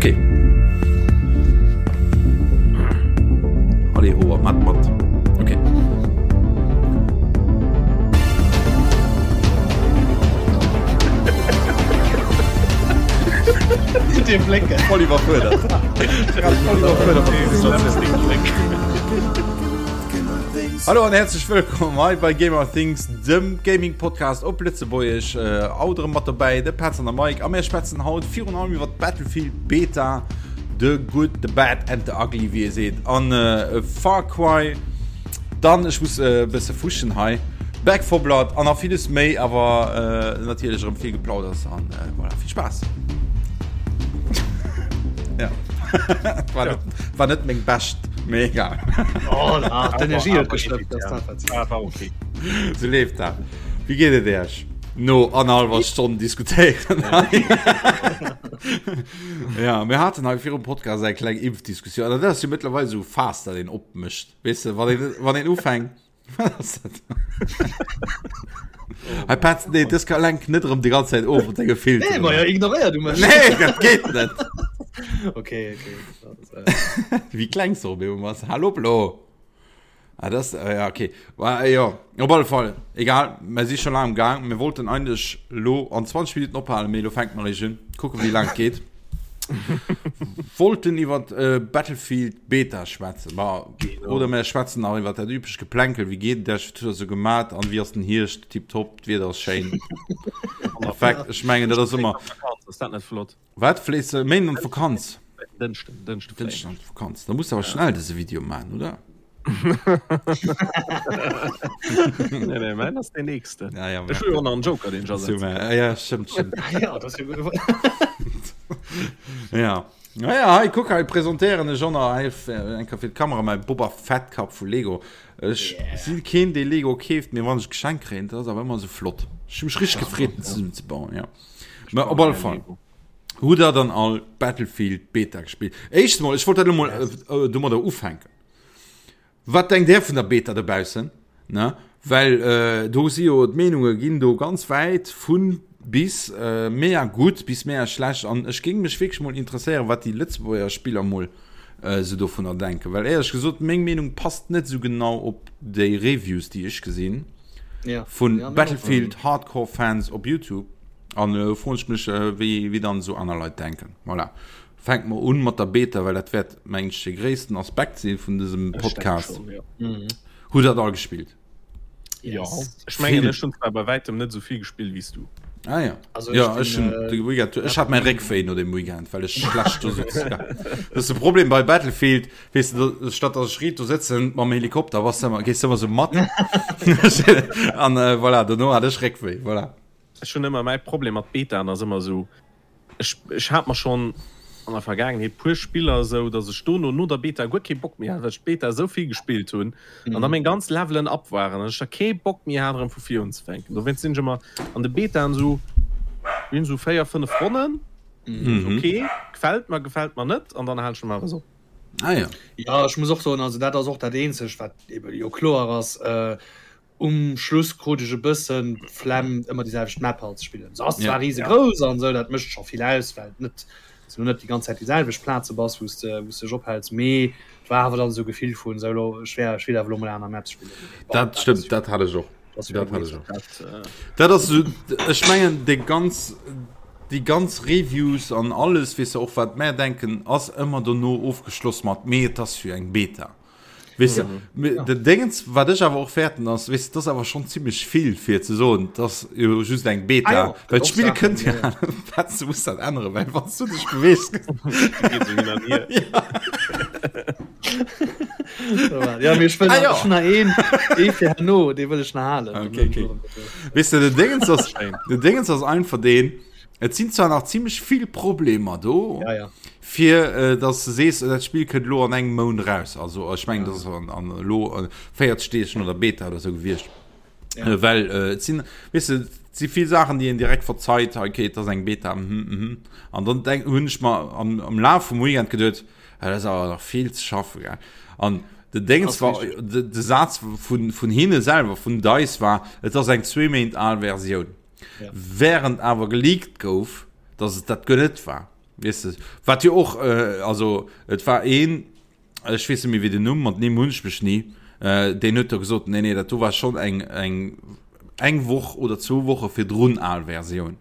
Okay. Allez, oh, mat, mat. Okay. Dee Bléck. Voll iwwerfuerdert. Voll iwwerfuerdert mat der Situatioun. Hallo an herzlech wëllkomm hei bei Gamer Things, dem Gaming Podcast op Lëtzebuergesch. Äh, haut erëm mat dobäi de Petz an der Mike a mir schwätzen haut virun allem iwwer Battlefield Beta, the good, the bad and the ugly, wéi ee seet, an äh, Far Cry. Dann, ech muss e bësse fuschen hei, Back 4 Blood an nach villes méi, awer äh, natierlech erëm vill Geplauders an äh, voilà, vill Spaass. ja. war, net, war net meng bescht, mee egal. Oh, na, d'Energie huet gestëmmt, das dat wat Ah, war okay. So leeft dat. Wéi geet et Iech? No annerhallwer Stonn diskutéieren. ja, mir haten hei virum Podcast eng kleng Impfdiskussioun. An dat ass jo mëttlerweil esou Faass, dat een opmécht. Weess de, wann een, wann een ufänkt. Wat ass dat? Hei Petz, nee, dës ka lenk net erëm déi ganz Zäit of mat denge Filteren. Nee, ma ja, ignoréier du mech. Nee, dat geet net. Okay, okay. Das, äh, Wéi klengs du op eemol bass. Hallo, Blo. Ah, das, äh, ja, okay. War, äh, ja, op alle Fall. Egal, mir si schon lang am Gang. Mir wollten eigentlich lo an 20 Minuten ophalen, mee lo fänkt mer eréischt un. Kucken, wéi lang et geet. Wollten iwwer äh, Battlefield Beta schwätzen. Ma, oder mir schwätzen nach iwwer dat üblecht Geplänkel. Wéi geet et iech? Wat hutt der sou gemat? An wéi ass den Hierscht? Tiptop, d'Wieder ass schéin. Perfekt. Ech mengen, dat ass ëmmer. Ass dat net flott? Wat fléis de Méinden an d'Vakanz? Dënschden, Dënschde fléien Dënschden an d'Vakanz. Da muss awer schnell dëse Video man, oder? Nee, nee, mäin ass deen nächsten. Ja, ja, Ech hu jo och nach en Joker, deen ech asetzen. Super. Ja, stëmmt, stëmmt. ja, das ist ja gut. Ja. Naja, hei, kuck, hei presentéieren ech och nach hei eng Kéier fir d'Kamera mäi Boba Fett Kap vu Lego. Ech Yeah. si keen, dee Lego keeft, mee wann ech Geschenk kréien, dat ass awer ëmmer esou flott. Ech hu mech richteg gefreet, en zesummen ze bauen, ja. Mä op alle Fall. Hutt der dann all Battlefield Beta gespillt? Éischtens mol, ech wollt dat elo mol äh, domadder ufänken. Wat denkt Där vun der Beta dobaussen? Ne? Well äh, do si jo d'Meenunge ginn do ganz wäit vun bis äh, mega gutt bis mega schlecht. An ech géing mech wierklech mol interesséieren, wat déi Lëtzebuerger Spiller mol äh, sou dovunner denken. Well éierlech gesot, meng Meenung passt net sou genau op déi Reviews, déi ech gesinn Ja. vun Ja, meng och. Battlefield Hardcore Fans op YouTube. An elo froen ech mech, wéi, wéi dann esou aner Leit denken. Voilà. Fänke mer un mat der Beta, well dat wäert, mengen ech, de gréissten Aspekt si vun dësem Podcast. Schon, ja. Hutt der dat all gespillt? Ja. Ech mengen, ech hunn zwar bei wäitem net esou vill gespillt wéi s du. Ah ja. Also ja, ech ech hunn bin, de Weekend, ech hat mäi Réckwéi no dem Weekend, well ech schlecht do sutz. Ja. Dat ass de Problem bei Battlefield, weess de, do, statt dass ech riit do sëtzen mam Helikopter, bass de ëmmer, gees de ëmmer esou mat. An äh, voilà, dono hat ech Réckwéi, voilà. Ech hunn ëmmer mäi Problem mat Betaen ass ëmmer esou, ech ech hat mer schonn an der Vergaangenheet puer Spiller esou, datt ech dono no der Beta guer kee Bock méi hat, well ech d'Beta esou vill gespillt hunn an da meng ganz Levelen up waren an ech da kee Bock méi hat erëm vu vir unzefänken. Dowéinst sinn ech ëmmer an de Betaen esou, mir hunn esou 4, 5 Ronnen, ok, gefält mer, gefält mer net an dann halen ech normalerweis op. Ah ja. Ja, ech muss och soen, also dat ass och dat eenzegt wat ebe jo kloer ass, Um Schluss krut ech e bëssen d'Flemm ëmmer déi selwecht Map halt ze spillen. Se ass zwar riesegrouss an esou, dat mécht scho vill aus, well et net s du net déi ganz Zäit déi selwecht Plaze bass, wou s de wou s de dech ophäls, mee et war awer dann esou Gefill vun esou elo ech wär ech will awer elo mol aner Maps spillen. Mee bon, Dat dat ass stëmmt, jo dat hat ech och. dat ass jo Dat keng hat ech och. Beta. Dat ass esou, ech mengen déi ganz déi ganz Reviews an alles, weess de och wat mär denken, ass ëmmer dono ofgeschloss mat mee et ass jo eng Beta. Weess de, ja. Den Dingens, wat ech awer och fäerten ass, weess de, dat ass awer schonn zimmlech vill fir ze soen, dat ass jo just eng Beta. Ah, ja, well d'Spill kënnt ja, ja. Petz, du muss dat änneren, well wann du dech beweegst. Ja, mir ech wëll ah, ja. nach een, ee fir herno, dee wëll ech nach halen. Okay, okay. Weess de, den Dingens ass, den Dingens ass einfach deen, Et sinn zwar nach zimmlech vill Problemer do, ja, ja. fir äh, dass du sees, dat Spill kënnt lo an engem Mount raus. Also ech mengen, ja. das an, an lo äh, 40 Deeg no der Beta oder so gewiescht. Ja. Äh, well äh, et sinn, weess du, et si vill Saachen, déi een direkt verzeit, okay, dat ass eng Beta, mhm, mhm. An dann denk, hunn ech mer am, am Laf vum Weekend geduet, ja, dat ass awer nach vill ze schaffen, gell. An de Déngens war, de, de Saz vun, vun hinne selwer, vun DICE war, et ass eng zwee Méint al Versioun. Ja. Während awer geleakt gouf, dass et dat guer net war. Weess de, wat jo och, also et war een, ech weess net méi wéi den Numm, mat Nimm hunn ech mech ni, deen huet do gesot, nee nee, dat do war schonn eng eng eng Woch oder zwou Woche virdrun al Versioun.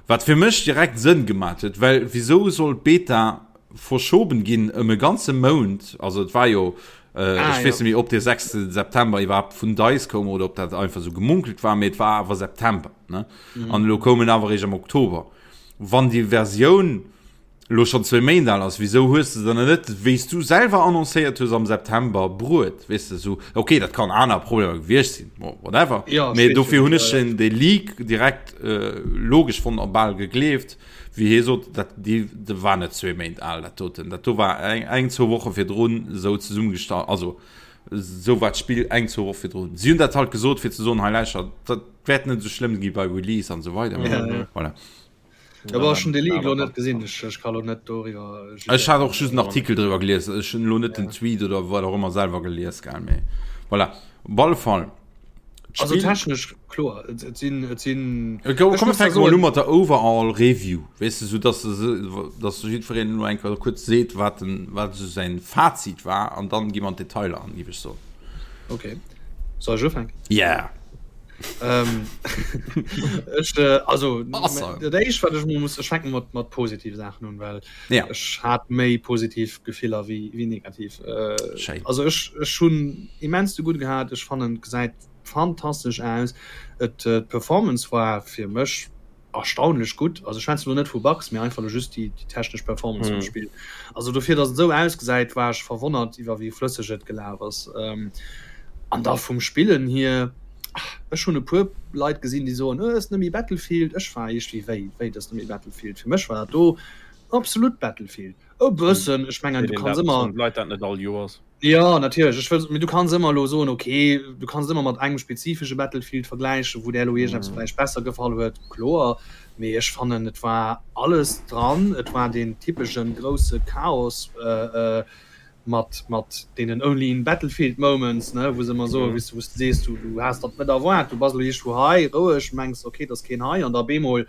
Wat fir mech direkt Sënn gemat huet, well wisou soll d'Beta verschoben ginn ëm e ganze Mount, also et war jo, ech weess net méi ob dee 6 September iwwerhaapt vun DICE koum oder ob dat einfach esou gemunkelt war, mee et war awer September, ne? An elo koum en awer eréischt am Oktober. Wann déi Versioun elo schonn zwéi Méint al ass, wisou hues de se dann net, wéi s du selwer annoncéiert hues am September, bruet? Weess de, esou, ok, dat kann aner Problemer gewiescht sinn, bon, whatever, Ja, mee steet jo dofir net, hunn ja, ech ja. den dee Leak direkt logesch fonnt a bal gegleeft, wéi hie sot, dat déi dat war net zwee Méint al, dat doten, dat do war eng eng zwou Woche virdrun esou zesummegestallt, also esou war d'Spill eng zwou Woche virdrun. Si hunn dat halt gesot, fir ze soen, hei lauschtert, dat wäert net esou schlëmm gi bei Release an esou weider, Ja, ja. voilà. Ja, aber schon de Leak lo net gesinn ech, ech kann lo net doriwwer Ech hat och just en Artikel driwwer gelies ech hunn lo net den Tweet oder wat och ëmmer selwer gelies gell mee voilà op alle Fall Also technesch kloer et, et sinn et sinn Komm komm fänke mol u mat der Overall Review weess de sou dass de dass jiddwereen elo eng Kéier kuerz seet wat den wat esou säin Fazit war an dann gi mer an d'Detailer an géif ech soen. Okay soll ech ufänken? Yeah. Ähm, ech, äh, also dat éischt wat ech muss ech fänken mat mat positive Saachen un, well ja. ech hat méi positiv Gefiller wéi wéi negativ. Äh, Schéin. also ech ech hunn immens de gutt gehat, ech fannen gesäit fantastesch aus. Et äh, d'Performance war fir mech erstaunlech gutt. Also ech schwätzen elo net vu Bugs, mee einfach elo just déi déi technesch Performance vum Spill. Also dofir, datt et esou ausgesäit, war ech verwonnert iwwer wéi flësseg et gelaf ass. An da vum Spillen hier, ech hunn e puer Leit gesinn, déi soen, oh, ass net méi Battlefield. Ech war iergendwéi, wéi, wéi, dat ass net méi Battlefield? Fir mech war dat do absolut Battlefield. E bëssen, ech mengen, du kanns ëmmer. Leit dat net all Joers. Jo, natierlech. Ech wëll, mee du kanns ëmmer elo soen, ok, du kanns et ëmmer mat engem spezifesche Battlefield vergläichen, wou där elo iergendeppes vläicht besser gefall huet, kloer. Mee ech fannen, et war alles dran. Et war deen typesche grousse Chaos mat, mat deenen only in Battlefield moments, ne, wou se ëmmer soen, wéis de, wou s de sees, du, du has dat net erwaart, du bass elo iergendwou hei roueg, mengs, ok, et ass keen hei, an da bemol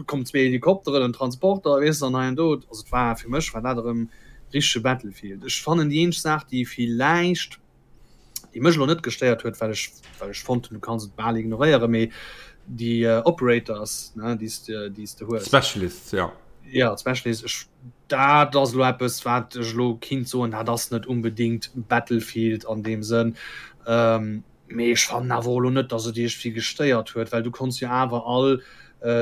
kommen zwee Helikopteren, en Transporter, weess de, an hei an do. Also et war, fir mech war dat erëm richtege Battlefield. Ech fannen déi eenzeg Saach, déi villäicht, déi mech elo net gestéiert huet, well ech, well ech fonnt hunn, du kanns et bal ignoréieren, mee déi Operators, ne, déi s de, déi s de hues. Specialists, ja. Ja, d'Specialists, ech, dat ass elo eppes, wat ech elo kinnt soen, dat ass net unbedingt Battlefield an deem Sënn. Mee ech fannen awer och elo net, dass et iergendwéi gestéiert huet, well du konns jo awer all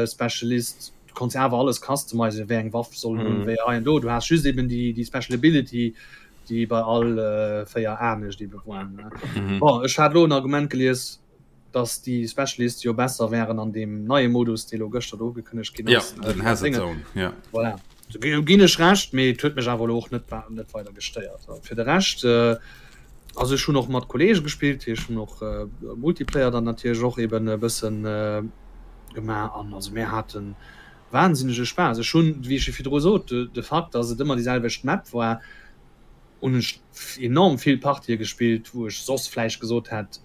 Specialist, du konns jo awer alles customizen, wéi eng Waff soll en hunn, wéi hei an do. Du has just eben déi, déi Special Ability, déi bei all 4 anescht ebe war. Bon, ech hat elo en Argument gelies, dass déi Specialists jo besser wären an deem neie Modus, dee elo gëschter do ugekënnegt ginn ass. Ja, den Hazard Zone, ja. Voilà. Ginn ech Recht, mee et huet mech awer elo och net net weider gestéiert. Fir de Rescht, also ech hunn och mat Kolleege gespillt, ech hunn och Multiplayer dann natierlech och eben e bëssen gemaach an also mir hate wahnsinnege Spaass. Ech hunn, wéi ech jo virdru sot, de Fakt, datt et ëmmer déi selwecht Map war, hunn ech enorm vill Partië gespillt, wou ech soss vläicht gesot hätt,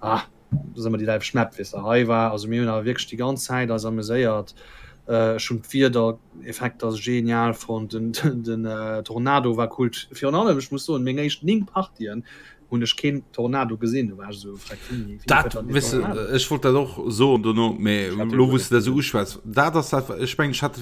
ah, Dat ass ëmmer déi selwecht Map, weess de. Hei war, also mir hunn awer wierklech déi ganz Zäit eis ameséiert. Ech hunn d'Wiedereffekter genial fonnt, den, den Tornado war cool. Virun allem, ech muss soen, meng éischt 9 Partien hunn ech keen Tornado gesinn. Do war ech esou, freck, wéini, wéini Dat, kënnt dann deen weess de, Tornado? ech wollt dat och soen dono, mee Ech hat deen elo guer wou s net de dat esou gesinn. uschwätz, dat ass dat, ech mengen, ech hat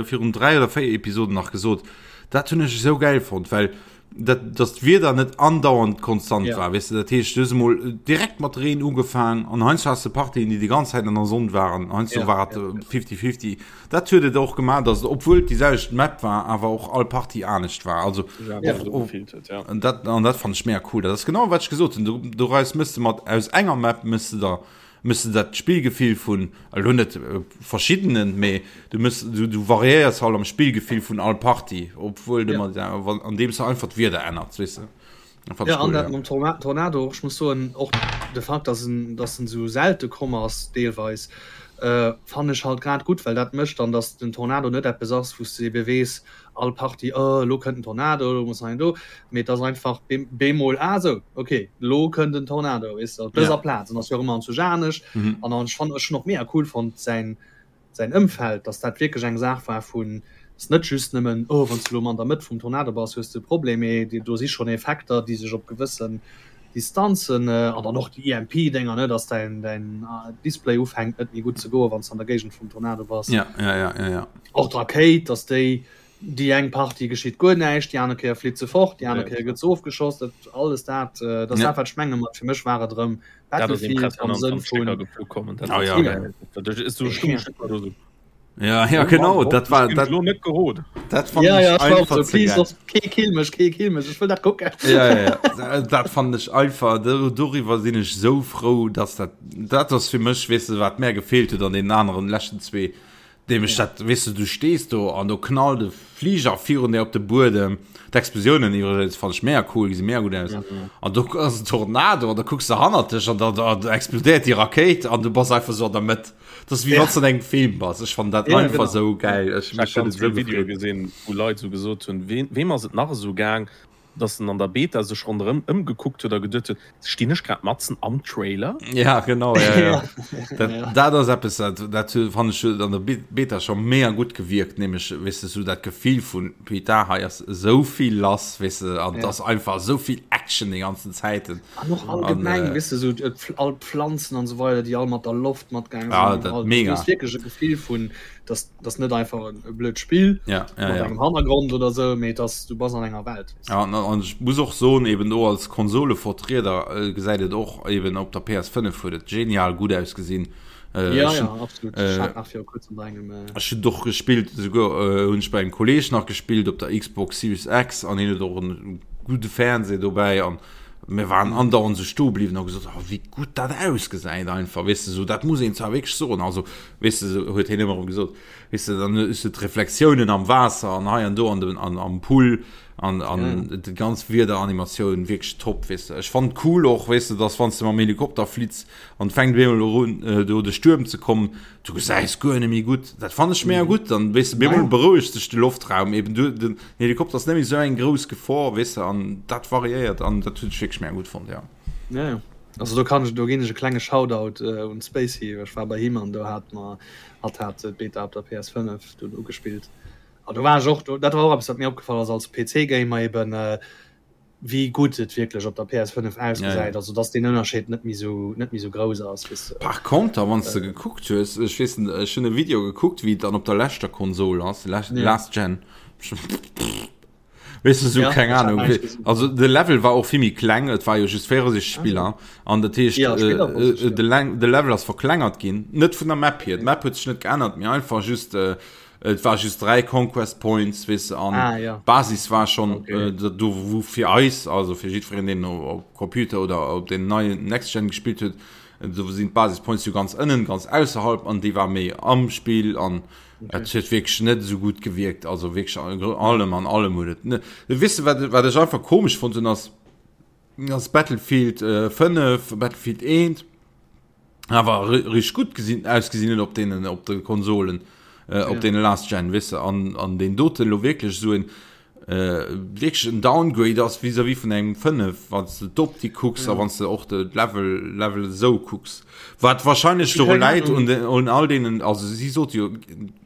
virun 3 oder 4 Episoden nach gesot, dat hunn ech esou gäil fonnt, well dat dass d'Wieder net andauernd konstant ja. war weißt du, dat heescht du hues emol äh, direkt mat Reen ugefaang an heiansdo hast du Partien déi die ganz Zäit an der Sonn waren heiansdo ja, war ja, 50-50 dat huet et och gemaach dass obwuel déi selwecht Map war awer och all Partie anescht war also ja, och, so och, gefilt huet, ja. an dat an dat fand ech mega cool dat ass genau wat ech gesot hunn du, du reis mëss de mat aus enger Map mëss de der Mëss de dat Spillgefill vun, elo net verschiddenen, mee du mëss, du, du variéiers halt am Spillgefill vun all Partie, obwuel de Ja. mat, andeems de einfach d'Wieder ännerts, weess de. Dat fand Ja, ech an cool, dat ja. mam Torna Tornado och, ech muss soen, och de Fakt, dass en, dass en esou selte komm ass deelweis, äh, fannen ech halt grad gutt, well dat mécht dann, dass den Tornado net eppes ass, wou s de ebe weess, all Partie, oh, elo kënnt en Tornado, elo muss hei an do, mee et ass einfach bemol, ah sou, ok, elo kënnt en Tornado, weess de, op dëser Ja. Plaz, an ass jo och ëmmer anzwousch anescht. Mhm. An dann, ech fannen, ech hunn och mega cool fonnt säin, säin Ëmfeld, dass dat wierklech eng Saach war vun. Ass net just nëmmen, oh wann s du elo an der Mëtt vum Tornado bass, hues de e Problem, mee do si schonn Effekter, déi sech op gewëssen Distanzen, an dann och déi EMP-Dénger, ne, dass däin däin Display ufänkt net méi gutt ze goen, wann s de an der Géigend vum Tornado bass. Ja, ja, ja, ja, ja. Och d'Rakéit, dass déi déi eng Partie geschitt guer näischt, déi aner Kéier flitt se fort, déi aner Kéier gëtt se ofgeschoss, dat alles dat, dat ass dat wat ech menge mat fir mech war et erëm Battlefield am Sënn vun. Ah, ja, ja. Ja, ja genau dat war dat net gerot dat fand ja, ja, einfach so, please, kee kill mech kee kill mech ech wëll dat kucken ja, ja, ja. dat fand ech einfach doriwwer sinn ech sou frou dass dat dat ass fir mech weess de wat mär gefeelt huet an den aneren leschten zwee nämlech ja. dat weess de du stees do an do knallt de Fliger virun der op de Buedem d'Explosiounen iwwregens fand ech mega cool gesi mega gutt aus an do ass en Tornado an da kucks de hannert dech an da, da, da explodéiert déi Rakéit an du bass einfach sou an der Mëtt Das ist wie ja. wann du an engem Film bass. Ech fand dat ja, einfach genau. so geil. Ech, ich hab ganz vill Video gesinn, wou Leit so gesot hunn, wem, wem ass et nach esou gaang, dass en an der Beta sech ronderëm ëmgekuckt huet a geduet huet, stinn ech grad matzen am Trailer? Ja, genau. Ja, ja. Dat, ja. dat ass eppes, dat, dat fand ech an der Beta schon mega gutt gewierkt, nämlech, weess de, so dat Gefill vun, putain, hei ass esou vill lass, weess de, an ja. ass einfach esou vill Action déi ganzen Zäiten. An och allgemeng, weess de, sou all d'Pflanzen an esou weider, déi all mat der Loft matgaange sinn. Ah, dat mega. Du hues wierklech e Gefill vun, dass dass net einfach e blöd Spill ja, ja, mat ja. engem Hannergrond oder sou, mee dass du bass an enger Welt. Ja, an, an ech muss och soen, eben do als Konsolevertrieder gesäit et och eben op der PS5 huet et genial gutt ausgesinn. Äh, ja, ja, absolut. Äh, ich nach kurz bei engem, äh... Ech hun doch gespielt souguer äh, hunn ech bei engem Kolleg nach gespielt op der Xbox Series X an hien huet och en gudde Fernseh dobäi an mir waren andauernd sou stoe bliwwen a gesot oh, wéi gutt dat ausgesäit einfach weess de sou dat muss een zwar wierklech soen also weess de sou huet hien ëmmer erëm gesot weess de dann hues de d'Reflexiounen am Waasser an hei an do an dem an am Pool an an ja. déi ganz Wiederanimatioun wierklech top weess de ech fand cool och weess de dass wann s de mam Helikopter flitts an fänkt op eemol un do de Stuerm ze kommen, du gesäis guer net méi gutt. Dat fannen ech mega gutt, dann weess de, op eemol berouegt sech de Loftraum eben, du den Helikopter ass net méi esou eng grouss Gefor, weess de, an dat variéiert an dat hunn ech wierklech mega gutt fonnt, jo. Ja, ja. Also do kann ech, do ginn ech e klenge Shoutout un d'Spacey, ech war bei him an do hat mer, hatt hat d'Beta op der PS5 dunn ugespillt an do war ech och, dat war och eppes wat mir opgefall ass als PC-Gamer eben, wéi gutt et wierklech op der PS5 ausgesäit, ja. also dass den Ënnerscheed net méi sou net méi sou grouss ass. Wéi se, Par conter, wann s de gekuckt hues, ech weess net, ech hunn e Video gekuckt, wéi et dann op der leschter Konsol ass, last, ja. last Gen. Weess de, sou, ja, keng Ahnung. Also de Level war och vill méi kleng, et war jo just 64 Spiller an dat heescht, ja, Spiller, äh, äh, de, de Level ass verklengert ginn, net vun der Map hier, d'Map huet sech net geännert, mee einfach just äh, Et war just 3 Conquest Points weess de an ah, ja. Basis war schon okay. äh, do wou fir eis also fir jiddwereen deen op Computer oder op den neien Next Gen gespielt huet do sinn d'Basis Points jo ganz ënnen ganz ausserhalb an déi war méi am Spill an okay. et huet wierklech net esou gutt gewierkt also wierklech allem an allem huet et net weess de wat wat ech einfach komesch fonnt hunn ass ass Battlefield äh, 5 Battlefield 1 awer rich gutt gesinn ausgesinn huet op deenen op de Konsolen äh, op ja. den last gen wisse an an den doten lo wierklech so en äh, wierklech en Downgrade ass vis-à-vis vun engem 5 wann du d'Optik kucks ja. a wann du och de Level Level sou kucks wat wahrscheinlech doru läit un den un all deenen also si sot jo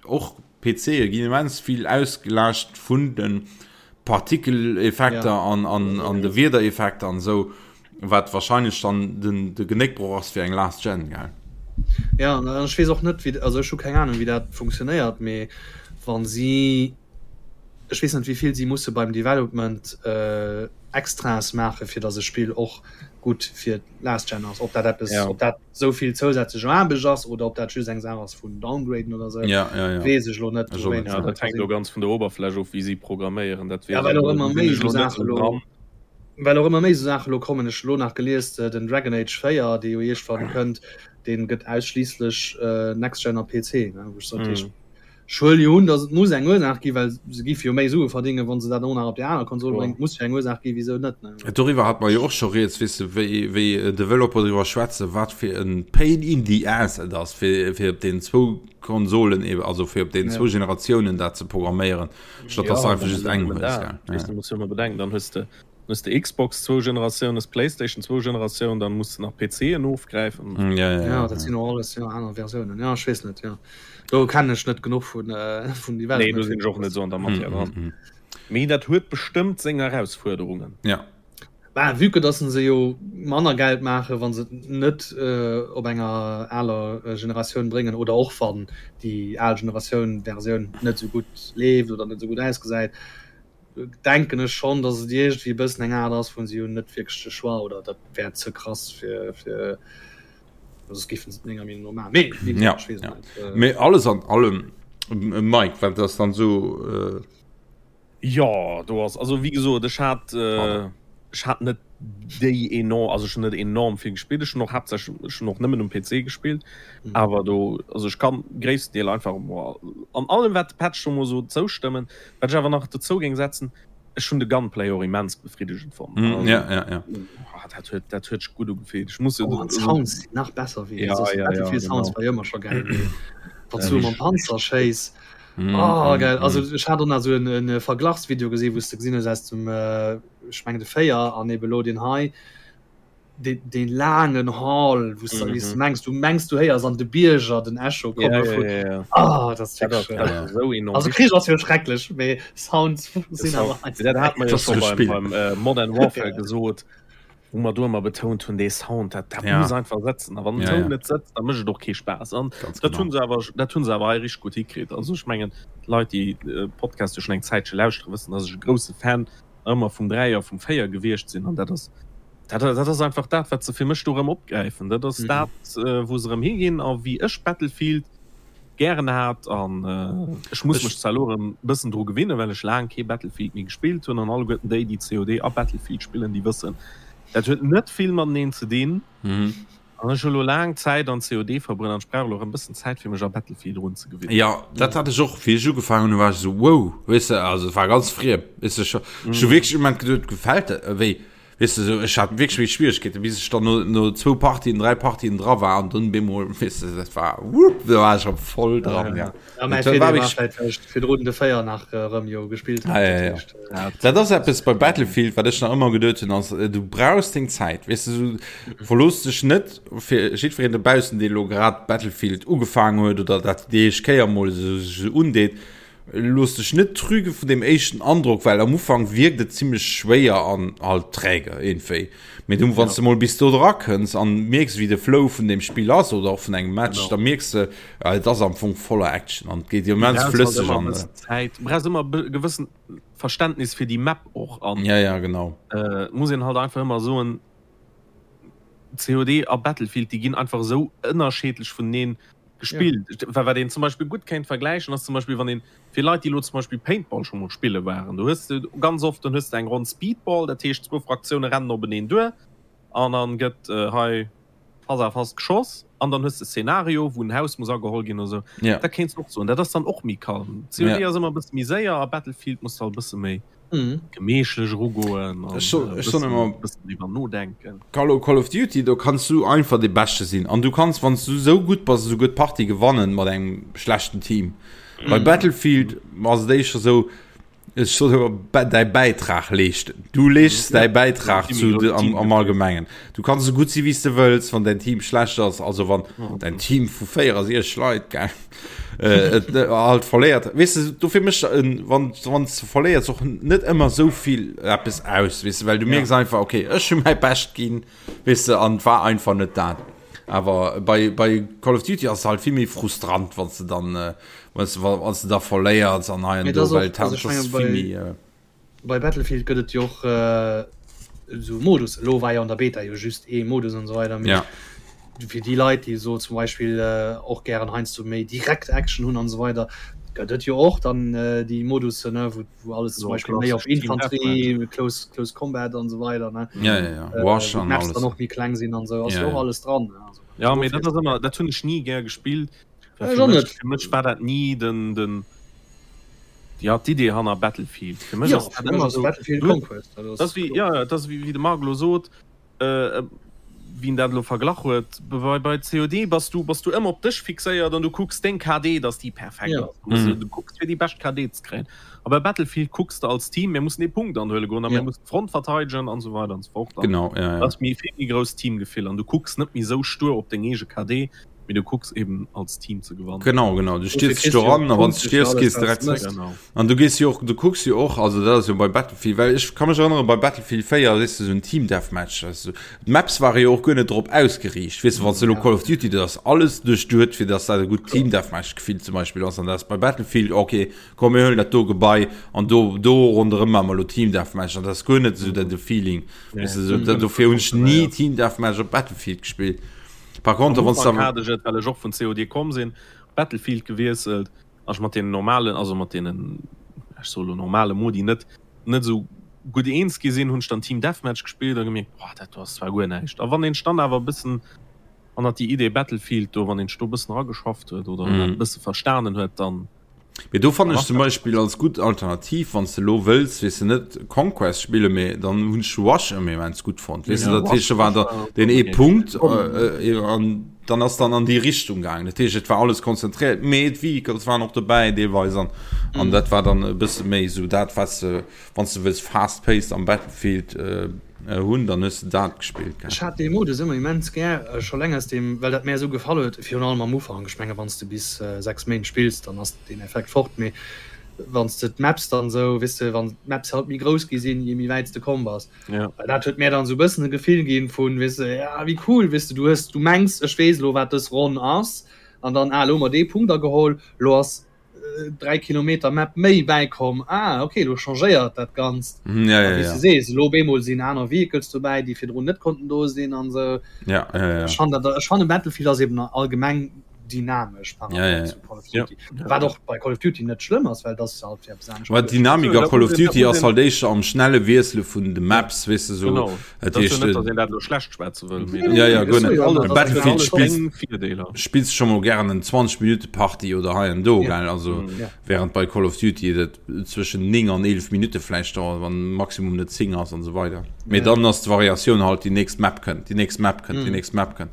och PCe ginn immens vill ausgelaascht vun den Partikeleffekter ja. an, an, an de Wiedereffekter an sou. Wat wahrscheinlech dann den de Genéckbroch ass fir eng Last Gen, gell? Ja, an ech weess och net wéi, also ech hu keng Ahnung wéi dat funktionéiert, mee wann si, ech weess net wéi vill si musse beim Development Extraes maache fir datt e Spill och gutt fir d'Last Gen ass, ob dat eppes, ob dat esou vill zousätzlech Aarbecht ass oder ob dat just eng Saach ass vun downgraden oder esou, weess ech elo net. Ja, dat hänkt elo ganz vun der Oberfläch of wéi si programméieren, dat weess ech elo net, sinn ech elo net esou dran. Well och ëmmer méi esou Saache lo kommen. Ech hu lo nach gelies, den Dragon Age 4, dee jo iergendwann kënnt, dee gëtt ausschliisslech Next Gen a PC. Wou ech sot, ech huele jo un, datt et muss eng Ursaach ginn, well se géife jo méi Sue verdéngen, wa se dat och nach op déi aner Konsol bréngen. Et muss jo eng Ursaach ginn, wisou net. Doriwwer hate mer jo och scho rieds, weess de, wéi, wéi Developer driwwer schwätzen, wat fir e Pain in the ass et ass, fir, fir op deenen zwou Konsolen, also fir op deenen zwou Generatiounen dat ze programméieren. Statt dass du einfach just eng hues. Ja. Du musst jo ëmmer bedenken, dann hues de. Hues de Xbox zwou Generatiounen, hues PlayStation zwou Generatiounen, dann muss de nach PCen ofgräifen. Mm, ja, ja, ja, dat sinn och alles jo aner Versiounen. Ja, ech weess net, jo. Do kennen ech net genuch vun äh, vun Development. Nee, do sinn ech och net esou an der Matière dran. Mm, mm, mm. Mee dat huet bestëmmt seng Erausfuerderungen. Ja. Bah, vue que dass se jo manner Geld maachen, wa se et net äh, op enger aler äh, Generatioun bréngen oder och wann déi al Generatioun Versioun net esou gutt leeft oder net esou gutt ausgesäit, denken ech schonn, dass et iergendwéi e bëssen eng Aart ass, wou se hunn net wierklech de Choix oder dat wär ze krass fir fir soss géifen se et menger Meenung no maachen. Mee wéi gesot, ech weess et net. Ja, mee alles an allem, Mike, wat ass dann esou? Jo, do ass, also wéi gesot, ech hat, ech hat net déi enorm, also ech hunn net enorm vill gespillt, ech hunn och haaptsächlech, ech hunn och nëmmen um PC gespillt, awer do, also ech kann gréissten Deel einfach an allem wat de Patch do mol sot zoustëmmen. Wat ech awer nach dozou géing setzen, ech hunn de Gunplay och immens befriddegend fonnt. Mm, ja, ja, ja. Oh, dat huet, dat huet sech gutt ugefillt. Ech muss oh, an d'Sounds sinn nach besser wéi ja, ja, ja, Sounds war ëmmer scho geil. Wann du mam Panzer schéiss. Mm, oh, geil. Mm, also ech hat och nach sou en, en Verglachsvideo gesinn, wou s de gesinn hues aus dem äh, ech mengen de 4 an eben elo deen hei. deen laangen Hall wou s du mengs du mengs du héiers an de Bierger den Echo komme vun ah dat ass wierklech also Krich ass jo schrecklech mee Sounds sinn awer dat hat mer jo scho beim beim Modern Warfare gesot wou mer do ëmmer betount hunn dee Sound dat dat muss einfach sëtzen a wann den Toun net sëtzt da mécht et och kee Spaass an dat hunn se awer dat hunn se awer hei richteg gutt hikritt. Also ech mengen d'Leit déi Podcast jo schonn eng Zäitche lauschtere wëssen dass ech e grousse Fan ëmmer vum 3 a vum 4 gewiescht sinn an dat ass dat, dat ass einfach dat wat se fir mech do erëm opgräifen. Dat ass mm. dat äh, wou se erëm higinn a wéi ech Battlefield gären hat an äh, ech muss mech zwar elo erëm bëssen dru gewinnen, well ech laang kee Battlefield méi gespillt hunn an alleguerten déi, déi COD a Battlefield spillen, déi wëssen, dat huet net vill mateneen ze dinn. Mm. An ech hu lo laang Zäit an COD verbruet an ech brauch elo erëm bëssen Zäit fir mech a Battlefield erun ze gewinnen. Jo, dat hat ech och, wéi ech ugefaangen hunn, war ech esou wow, weess de, also et war ganz friem, weess de, ech hu wierklech um Moment geduet, gefält dat, wéi, weess de, esou, ech hat wierklech méi Schwieregkeeten, bis ech dann no, no zwou Partien, dräi Partien dra war an dunn bemol, weess de, dat war wupp, do war ech erëm voll dran, ja. Ja, mäi Feeler war vläicht, well ech virdrun de 4 nach erëm jo gespillt hat. Ah, ja, ja. Ja. Dat ass eppes bei Battlefield, wat ech nach ëmmer geduet hunn, ass, du brauchs deng Zäit. Weess du, so, verlooss dech net fir jiddwereen dobaussen, dee lo grad Battlefield ugefaangen huet oder dat déi éischt Kéier mol esou sech esou undeet. Looss dech net trüge vun deem éischten Androck, well am Ufank wierkt et zimmlech schwéier an halt träge iergendwéi. Mee du, wann du mol bis do dra kënns an mierks, wéi de Flow vun deem Spill ass oder och vun engem Match, da mierks de, ja, et ass am Fong voller Action an et geet immens flësseg an. Zäit. Du brauchs ëmmer e gewëssen Verständnis fir déi Map och an. Ja, ja, genau. Äh, muss een halt einfach ëmmer soen, COD a Battlefield, déi ginn einfach esou ënnerscheedlech vuneneen gespillt. Ja. Wat een zum Beispill gutt kéint vergläichen, ass zum Beispill, wann een, fir Leit, déi elo zum Beispill Paintball scho mol spille waren, do hues de ganz oft, dann hues de eng Ronn Speedball, dat heescht zwou Fraktioune rennen openeen duer an dann gëtt hei face à face geschoss an dann hues de Szenario, wou en Haus muss ageholl ginn oder sou. Ja. Dat kéints de och soen, dat ass dann och méi kalm. COD ass ëmmer e bësse méi séier a Battlefield muss de halt e bësse méi. Gemeechlech erugoen an Ech soen, ech soen ëmmer, bëssen driwwer nodenken. Call, Call of Duty, do kanns du einfach dee Beschte sinn. An du kanns, wann s du esou gutt bass, esouguer d'Partie gewannen mat engem schlechten Team. Bei Battlefield ass et éischter esou, ech soen ëmmer, däi Bäitrag leeschten. Du leeschts däi Bäitrag zu, am, am Allgemengen. Du kanns esou gutt si wéi s de wëlls, wann däin Team schlecht ass, also wann däin Team vu 64 Leit, gell, äh, et, äh, halt verléiert weess de dofir mécht en wann wann du verléiers och net ëmmer sou vill eppes aus weess de well du mierks ja. einfach okay ech hu mäi Bescht ginn weess de an war einfach net dat awer bei bei Call of Duty ass halt vill méi frustrant wann du dann äh, wann du wann du da verléiers an hei an do well dat ass vill méi äh, Bei Battlefield gëtt et jo och esou Modus. Elo war jo an der Beta jo just ee Modus an esou weider. Mee ja. fir déi Leit, déi esou zum Beispill och gären heiansdo méi direkt Action hunn an esou weider, gëtt et jo och dann déi Modussen, ne, wou, wou alles zum Beispill méi op Infanterie, Close, Close Combat an esou weider, ne. Ja, ja, ja. Wash an alles. Dann och méi kleng sinn an esou, ass jo och alles dran. Also, ja, mee dat ass ëmmer, dat hunn ech ni gär gespillt. Fir mech, fir mech war dat ni den, den, ja, d'Idee hanner Battlefield. Fir mech ass dat ëmmer esou, Battlefield Conquest, dat ass wéi, ja, dat ass wéi de Marc elo sot, äh, wien dat elo verglach huet, bei, bei COD bass du, bass du ëmmer op dech fixéiert an du kucks deng KD, dass déi perfekt Ja. ass. Du muss, du kucks fir déi bescht KD ze kréien. A bei Battlefield kucks de als Team, mir mussen ee Punkt anhuele goen a mir Ja. mussen d'Front verteidegen an esou weider an esou fort. An Genau, ja, ja. dat ass méi vill méi grousst Teamgefill an du kucks net méi esou stur op deng eege KD, mee du kucks eben als Team ze gewannen. Genau, genau. Du Dofir stierz kriss du do jo ran, a wann du Punkte fir stierfs, alles, gees wat direkt s zréck. mëss. Genau. An du gees jo och, du kucks jo och, also dat ass jo bei Battlefield, well ech ka mech erënnere bei Battlefield 4, weess de, esou en Team Deathmatch, weess du, d'Maps ware jo och guer net drop ausgeriicht, weess de, wann s de elo Ja. Call of Duty, dat ass alles duerchduet, fir dass dat e gutt Kloer. Team Deathmatch Gefill zum Beispill ass, an dat ass bei Battlefield, okay, komm mir huelen dat do Gebai an do do ronderëm maache mer elo Team Deathmatch, an dat ass guer net esou dat de Feeling, weess de, esou, Mhm. dofir hunn ech ni Team Deathmatch op Battlefield gespillt. Par contre, Am wann s Ufank de hat ech et, well ech och vun COD komm sinn, Battlefield gewiesselt an ech mat deenen normalen, also mat deenen, ech soe lo normale Modi net net esou gutt eens gi sinn, hunn ech dann Team Deathmatch gespillt a gemierkt, boah, dat do ass zwar guer näischt. A wann een sech dann awer e bëssen hannert déi Idee Battlefield do, wann een sech do e bëssen erageschafft huet oder dat e bësse verstanen huet, dann Mee do fannen dann ech ass zum dat Beispill als gutt Alternativ, wann s de elo wëlls, weess de, net Conquest spillen, mee dann hunn ech Rush ëmmer immens gutt fonnt, weess de, Ja, dat heescht, Rush, do war Rush da war deen och ee eng Punkt Idee. an dann ass dann an déi Richtung gaangen. Dat heescht, et war alles konzentréiert, mee d'Vehicles waren och dobäi deelweis an an dat war dann e bësse méi esou dat, wat s de, wann s de wëlls fast-paced am Battlefield hunn, dann hues de dat gespillt, gell. Ech hat dee Modus ëmmer immens gär, scho leng aus deem, well dat mär esou gefall huet, virun allem am Ufank. Ech menge wann s de bis 6 Méint spills, dann ass deen Effekt fort, mee wann s de d'Maps dann esou, weess de, wann d'Maps halt méi grouss gi sinn, je méi wäit s de komm bass, well dat huet mär dann esou e bëssen e Gefill ginn vun, weess de, ja wéi cool, weess de, du hues, du mengs ech weess elo wat dës Ronn ass, an dann, ah elo hu mer dee Punkt ageholl, elo ass 3 Kilometer Map méi bäikomm, ah okay, lo changéiert dat Ganzt. Mhm, ja, ja, wéi ja. du sees, lo op eemol sinn aner Vehicles dobäi, déi virdrun net konnten do sinn an esou. Ja, ja, ja. Ech fannen dat, ech fannen Battlefield ass eben allgemeng dynamesch par Ja, ja, rapport ja. zu Call of Duty. Ja. Wat och bei Call of Duty net schlëmm ass, well dat ass halt fir eppes anescht Well geduecht. d'Dynamik So, a da Call muss of een, da Duty muss ass een halt éischter am schnelle Wiessele vun de Maps, weess de, sou. Genau. Dat Dat ass jo heescht, net, datt een dat elo schlecht schwätze wëll, mee Nee, dat ja, nee, ja, nee, guer ech soe net. jo alles, net, Bei datt dat huet Battlefield alles spills seng Virdeeler. spills scho mol gären en 20 Minutte Partie oder hei an do, Ja. gell, also Ja. während bei Call of Duty dat zwëschen 9 an 11 Minutte vläicht dauert, wann Maximum net 10 ass an esou weider. Mee Ja. dann ass d'Variatioun halt déi nächst Map kënnt, déi nächst Map kënnt, déi Mhm. nächst Map kënnt.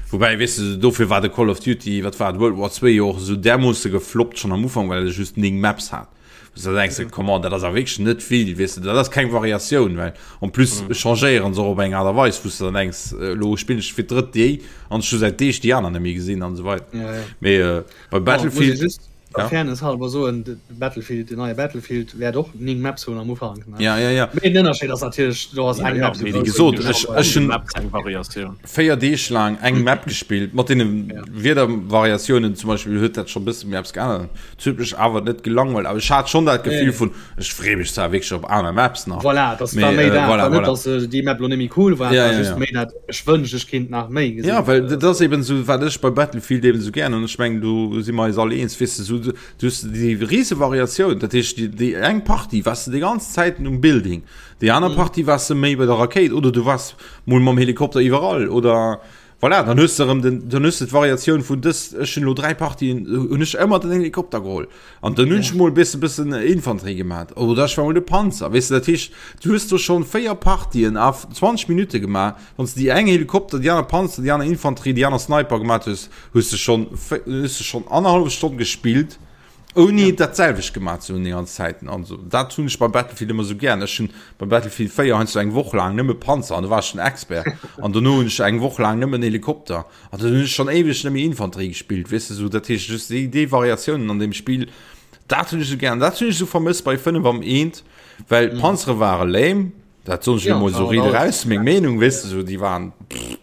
Woubäi, weess de, dofir war de Call of Duty, wat war et, World War 2 jo och esou därmoosse gefloppt schonn am Ufank, well e just 9 Maps hat. Wou s de da denks, come on, dat ass awer wierklech net vill, weess de, dat ass keng Variatioun, well en plus changéieren se och op eng Aart a Weis, wou s de dann denks, elo spillen ech fir d'drëtt déi an ech hu säit Deeg déi aner net méi gesinn an esou weider. Ja, ja. Mee bei Bon, muss ee Battlefield, just der ja. Fairness halber soen, de Battlefield, den neie Battlefield wäert och 9 Maps hunn am Ufank, ne? Ja, ja, ja. Mee den Ënnerscheed ass natierlech, do ass Ja, eng ja, Map esou mee Wéi grouss gesot, wéi ech, déi ech hunn Maps eng Variatioun. 4 Deeg laang eng Map gespillt, mat deene Ja. Wiedervariatiounen zum Beispill huet dat scho bësse méi eppes geännert. Et huet mech awer net gelangweilt, awer ech hat schonn dat Nee, Gefill nee. vun, ech freeë mech zwar wierklech op aner Maps nach, Voilà, das mee war méi äh, dat. voilà, War net, voilà. dass äh, déi Map lo net méi cool war, Ja, war ja, just ja. méi dat, ech wënscht, ech kinnt nach méi gesinn. Ja, well dat ass eben esou, wat ech bei Battlefield eben esou gären hunn. Ech mengen, do si mer eis all eens, weess de, esou, du hues déi rise Variatioun, dat heescht, déi, déi eng Partie waars de déi ganz Zäiten um Building, déi aner Partie waars de méi bei der Rakéit oder du waars mol mam Helikopter iwwerall oder voilà, dann hues de erëm den, dann hues de d'Variatioun vun dës, ech hunn elo 3 Partien, hunn ech ëmmer den Helikopter geholl an dann hunn ech mol e bësse bëssen Infanterie gemaat oder ech war mol de Panzer, weess de, dat heescht, du hues do schonn 4 Partien a 20 Minutte gemaach, wann s de déi eng Helikopter, déi aner Panzer, déi aner Infanterie, déi aner Sniper gemaat hues, hues de schonn, hues de schonn annerhallef Stonn gespillt. Ouni ja. dat selwecht gemaach ze hunn déi ganz Zäiten. Also dat hunn ech bei Battlefield ëmmer sou gären. Ech hunn bei Battlefield 4 heiansdo eng Woch laang nëmme Panzer an do war ech den Expert. An dono hunn ech eng Woch laang nëmmen Helikopter. An dann hunn ech schonn éiweg net méi Infanterie gespillt, weess de sou. Dat heescht just déi, déi Variatiounen an deem Spill, dat hunn ech sou gären. Dat hunn ech sou vermësst bei 5 am eent, well mhm. Panzere ware lame. Dat soen ech ja, emol sou riit eraus, meng Meenung, weess de sou, déi waren pff.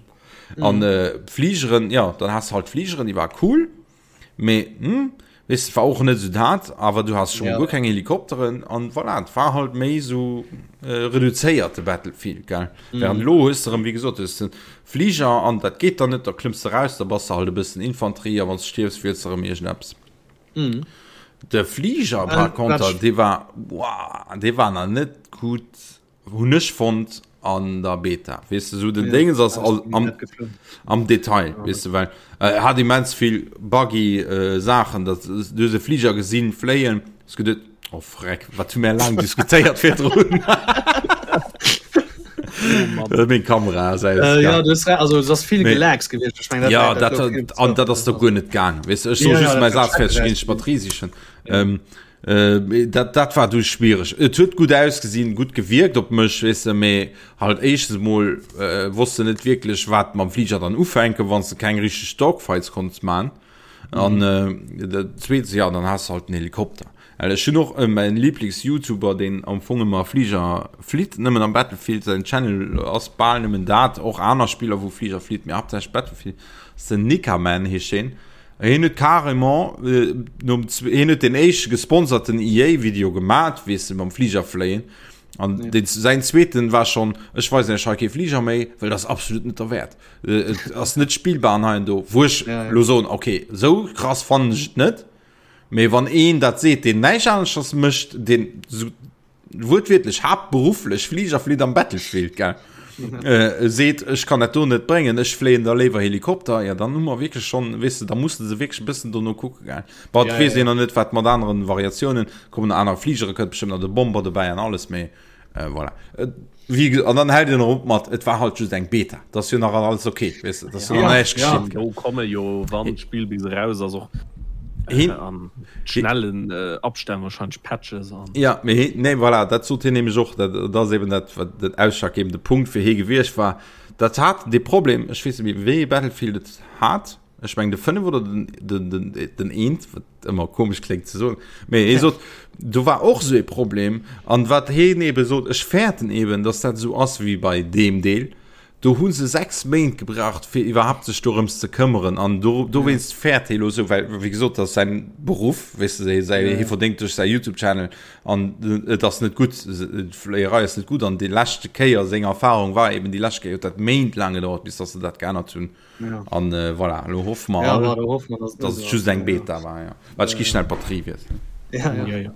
An mhm. äh, Fligeren, ja, dann has halt Fligeren, déi war cool. Mee hm, weess de, war och net esou dat, awer du has schon ja. guer keng Helikopteren an voilà, et war halt méi esou äh, reduzéiert de Battlefield, gell. Mm. Während lo hues de erëm, wéi gesot, hues de Fliger an dat geet dann net, da klëmms de raus, da bass de halt e bëssen Infanterie a wann s de stierfs, wiels de erëm iergendeppes. Mm. De Fliger par äh, contre, dee war, wow, dee war nach net gutt. Hun ech fonnt an der Beta weess de sou den Déngens ass all am, am Detail weess de well äh, hat immens vill buggy äh, Saachen dat du hues e Fliger gesinn fléien hues geduet oh freck wat hu mär laang diskutéiert virdrun. Oh Meng Kamera ass aus. Äh, ja, du hast, also es ass vill Gelags gewiescht. Ech meng, dat, ja, dat, dat, an dat ass doch guer net gaang. Weißt du, ech soll ja, just ja, mäi Saz fäerdeg ginn, ech Batterie sichen. Ja. Ähm, äh, dat, dat war du schwierig. Et huet gut ausgesinn, gut gewirkt op mech, weißt du, mee halt éischtens mol äh, wosst du net wierklech, wat mam Flieger dann ufänken, wann du keng richtig Dogfights konntest man. An mhm. äh, dat zweetens, ja, dann hast du halt den Helikopter. Well ech hunn och mäin Lieblings-Youtuber deen am Fong ëmmer Fliger flitt, nëmmen am Battlefield, säin Channel ass bal nëmmen dat, och aner Spiller wou Fliger flitt, mee haaptsächlech Battlefield, ass den Nikaman heescht heen. Hien huet carrément nom hien huet deen éischte gesponserten EA-Video gemat, weess de, mam Fliger fléien an deen säin zweeten war schonn, ech weisen iech hei kee Fliger méi, well dat ass absolut net derwäert, et ass net spillbar an hei an do, wou ech lo soen, okay, sou krass fannen ech et net. Mee wann een dat seet, deen näischt aneschters mécht, deen sou wuertwiertlech haaptberufflech Fliger flitt am Battlefield, gell, äh, seet, ech kann dat do net bréngen, ech fléien da léiwer Helikopter, ja dann hu mer wierklech schonn, weess de, da muss de se wierklech e bëssen dono kucke, gell. Bon, et Ja, weess ja. een nach net, wat mat aneren Variatiounen kommen, anere Fligere kënnt bestëmmt nach de Bomber dobäi an alles, mee äh, voilà. Et, Wie, an dann hält en erop mat, et war halt just eng Beta. Dat ass jo nach alles okay, weess de, dat ass jo nach näischt Ja, geschitt. Do komme jo, wann d'Spill bis eraus ass, och Hin- an schnellen Abstänn wahrscheinlech Patches an. Ja, mee hien, nee, voilà, dat sot hien nämlech och, dat, dat ass eben dat, wat den ausschlaggebende Punkt fir hie gewiescht war. Dat hat dee Problem, ech weess net méi, wéi ee Battlefield et hat, ech meng de 5 oder den, den, den, den eent, wat ëmmer komesch kléngt ze soen, mee hie sot, do war och esou ee Problem an wat hien ebe sot, ech fäerten eben, datt dat esou ass wéi bei deem Deel, do hu se 6 Méint gebraucht fir iwwerhaapt sech dorëms ze këmmeren an do, dowéinst fäert hie lo esou, well wéi gesot, dat ass säin Beruff, weess de, säi, hie verdéngt duerch säi Youtube-Channel an et ass net gutt, d'Fléierei ass net gutt an déi leschte Kéier, seng Erfarung war eben déi lescht Kéier huet dat méintlaang gedauert, bis datt se dat geännert hunn. Ja. An äh, voilà, lo hoffe mer ja, all, war, hoffe mer, dass, dass et just eng Beta war. Ja. Wat ich gi schnell Batterie wiesselen. Ja, ja. Ja, ja.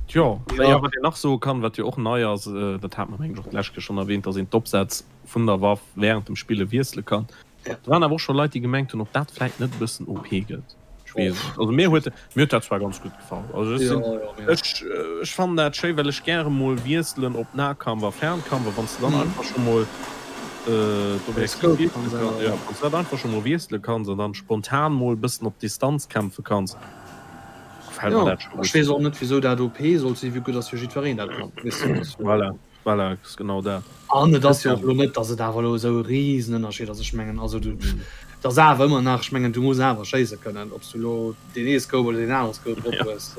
Tja, ja. ja, wat een nach soe kann, wat jo och nei ass, äh, dat hat mer mengen ech och d'lescht Kéier schonn erwähnt, dass een d'Opsätz vun der Waff während dem Spille wiessele kann. Ja. Do waren awer och scho Leit, déi gemengt hunn, ob dat vläit net e bëssen OP gëtt. Ech weess et. Also mir huet mir huet dat zwar ganz gutt gefall. Also ech sinn, Ja, ja, mir. ech ech fannen dat schéi, well ech gäre mol wiesselen op Nahkampf a Fernkampf a wann s de dann einfach scho mol d'Objektiv Scope wiessele kanns kanns, änneren. jo, wann s de dat einfach scho mol wiessele kanns an dann spontan mol bëssen op Distanz kämpfe kanns, gefält mer Jo, dat scho ech gutt. weess och net wisou dat OP sollt sinn, vue que dass jo jiddwereen dat kann, weess de, dass jo. Voilà. Voilà, ass genau dat. An et ass jo och elo net, datt et awer elo esou e Risenënnerscheed ass. Ech mengen, also du, et ass awer ëmmer nach, ech mengen, du muss awer schéisse kënnen, ob s du elo deen ee Scope oder deen anere Scope drop hues.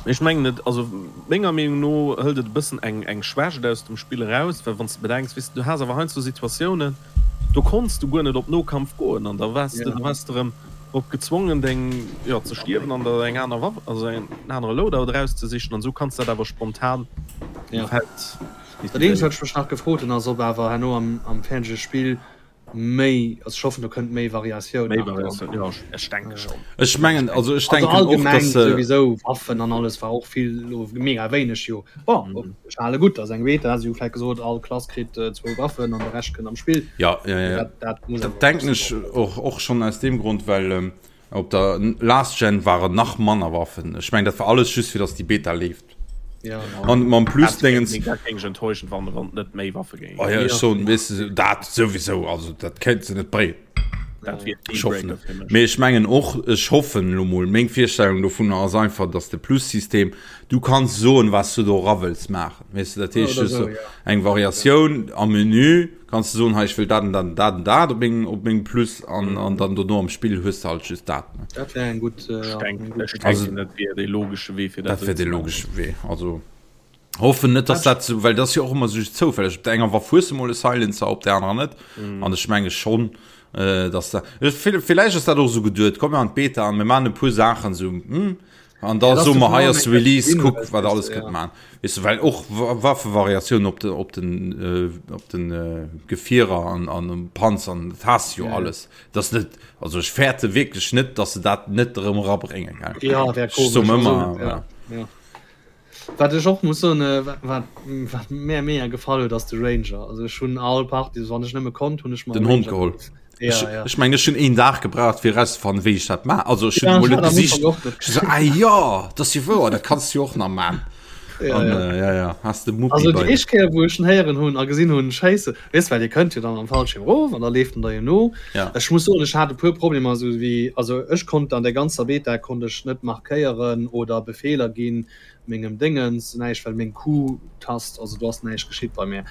Mee ech mengen et, also menger Meenung no hëlt et e bëssen eng eng Schwächt aus dem Spill eraus, well wann s de bedenks, weess de, du has awer heiansdo Situatiounen, do konns du guer net op Nokampf goen an da waars de, da waars de erëm drop gezwongen deng, jo, ze stierwen an der eng aner Waff, also en anere Loadout erauszesichen an esou kanns de dat awer spontan um Feld Dat eenzegt wat ech mech nach gefrot hunn ass ob awer herno am am fäerdege Spill méi, also ech hoffen do kënnt méi Variatioun Méi nach dran. Variatioun, jo ech denke schonn. Ech mengen, also ech Also denken och, allgemeng dass se. souwisou Waffen an alles war och vill elo mega wéineg jo. Bon, ech hale gutt, ass eng Beta, si hu vläicht gesot all Klass kritt zwou Waffen an de Rescht kënnt am Spill. Ja, ja, ja. Dat, dat muss Dat denken ech och, och schonn aus deem Grond, well ähm, op der Last Gen waren nach manner Waffen. Ech meng dat war alles just fir dass déi Beta leeft. Ja, An mam Plus-Dingens. Dat géing ech enttäuschend fannen, wann et net méi Waffe géing Oh ja, ech soen, weess de, dat souwisou, also dat kéint se net bréngen. Dat wier Ech hoffen Dealbreaker net. fir mech. Mee ech mengen och, ech hoffen elo mol, meng Virstellung dovunner ass einfach, dass de Plus-System, du kanns soen, wat s du do era wëlls maachen, weess de, dat heescht Oder just sou, sou ja. eng Variatioun am Menü, kanns du soen, hei ech wëll dat an dat an dat an dat op mengem, op mengem Plus an, an dann dono am Spill hues de halt just dat, ne. Dat wär eng gutt, Ech ja, denken, eng gutt ech Also- denken, dat wier dee logesche Wee fir dat Dat esou wär ze dee maachen. logesche Wee, also. Hoffen net dass dat sou, well dat ass jo och ëmmer sou zoufälleg. Op der enger Waff hues de mol e Silencer, op der anerer net. An ech menge schonn, dass dat, villäicht ass dat och esou geduet, komm mir an d'Beta an mir maachen e puer Saachen esou, hm, an da soe mer hei ass Release, kuck wat alles kënnt maachen. Weess de, well och Waffevariatiounen op de, op den, op den Gefierer an an um Panzern, dat has de jo alles. Dat ass net, also ech fäerte wierklech net, dass se dat net erëm erabréngen, gell. Jo, wär Ech soe komesch. mer Also, ëmmer, ja, ja. Wat ech och muss soen, wat wat mär mega gefall huet ass de Ranger. Also ech hunn all Party, wann ech nëmme konnt, hunn ech mer Den Hond geholl. Ja, Ech, ja. ech meng ech hunn een Dag gebraucht fir erauszefannen wéi ech dat ma also ech hunn Ja, emol ech net hat am gesicht. Ufank och net Ech so, ah jo, dat ass jo wouer, dat kanns du jo och nach man. Ja, an, ja. Äh, ja, ja. Hast de Muppi also, déi éischt Kéier, wou ech en héieren hunn a gesinn hunn, Schéisse, weess, well dir kënnt jo dann am Fallschirm erof an da leeft en der jo no. Ja. Ech muss soen, ech hat e puer Problemer, esou wéi, also ech konnt an der ganzer Beta konnt ech net markéieren oder Befeeler ginn, mengem Déngens näischt, well meng Q-Tast, also do ass näischt geschitt bei mir.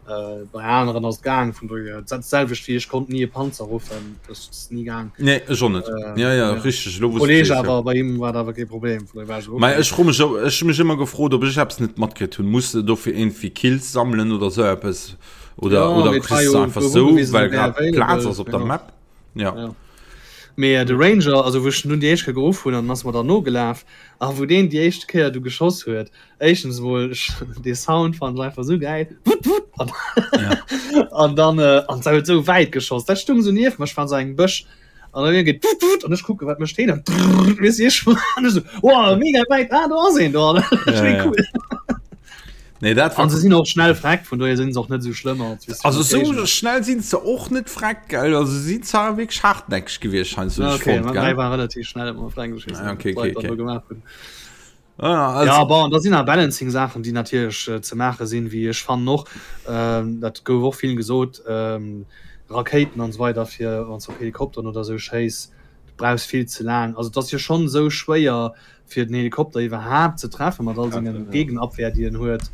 Äh, bei aneren ass et gaang, vun dohier dat selwecht wéi ech konnt ni e Panzer ruffen, dat ass ni gaang. Nee, ech och net. Äh, ja, ja, ja. richteg, elo wou s Kolleg sees, awer ja. bei him war dat awer kee Problem, vun dohier war ech esou, okay. Ech fro mech, ech hu mech ëmmer gefrot, ob ech eppes net matkritt hunn. Muss de dofir iergendwéi Kills sammelen oder esou eppes? Oder, ja, oder kriss du einfach esou, well grad Plaz ass op der Map? Ja. ja. Mee de Ranger, also wou ech nun déi éischt Kéier geruff hunn, an ass mer dann nogelaf, a wou deen déi éischt Kéier du geschoss huet, éischtens emol, dee Sound fannen ech einfach esou gäil, wutt wutt, an, ja. an dann äh, an se huet esou wäit geschoss, dat stung esou nieft mer, ech war an esou engem Bësch, an dann geet wutt wutt, an ech kucke wat mécht deen, an weess ech, an ech esou, wow, mega wäit, ah do ass een do, an ja, ja. cool. Nee, dat war. An se sinn och schnell freck, vun dohier sinn se och net esou schlëmm als wéi Also sou schnell sinn se och net freck, gell? Also se sinn zwar wierklech hartnäckeg gewiescht heiansdo, ja, okay, fonnt, gell? war relativ schnell ëmmer freng, ah, okay, okay, okay. gemaach hunn. Ah, also ja, bon, da sinn nach Balancing-Saachen, déi natierlech äh, ze maache sinn, wéi ech fannen och, ähm, dat gouf och vill gesot, ähm, Rakéiten an esou weider fir wann s op Helikopteren oder esou schéiss, du brauchs vill ze laang. Also et ass jo schonn esou schwéier fir den Helikopter iwwerhaapt ze treffen mat all sengen Gegenabwehr déi en huet,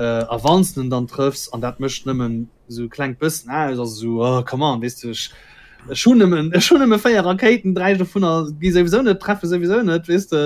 a wann s de en dann trëffs, an dat mécht nëmmen esou e klengt bëssen aus, ass esou, oh come on, weess de, ech ech hunn nëmmen ech hunn nëmme 4 Rakéiten, 3 dovunner gi souwisou net, treffe souwisou net, weess de.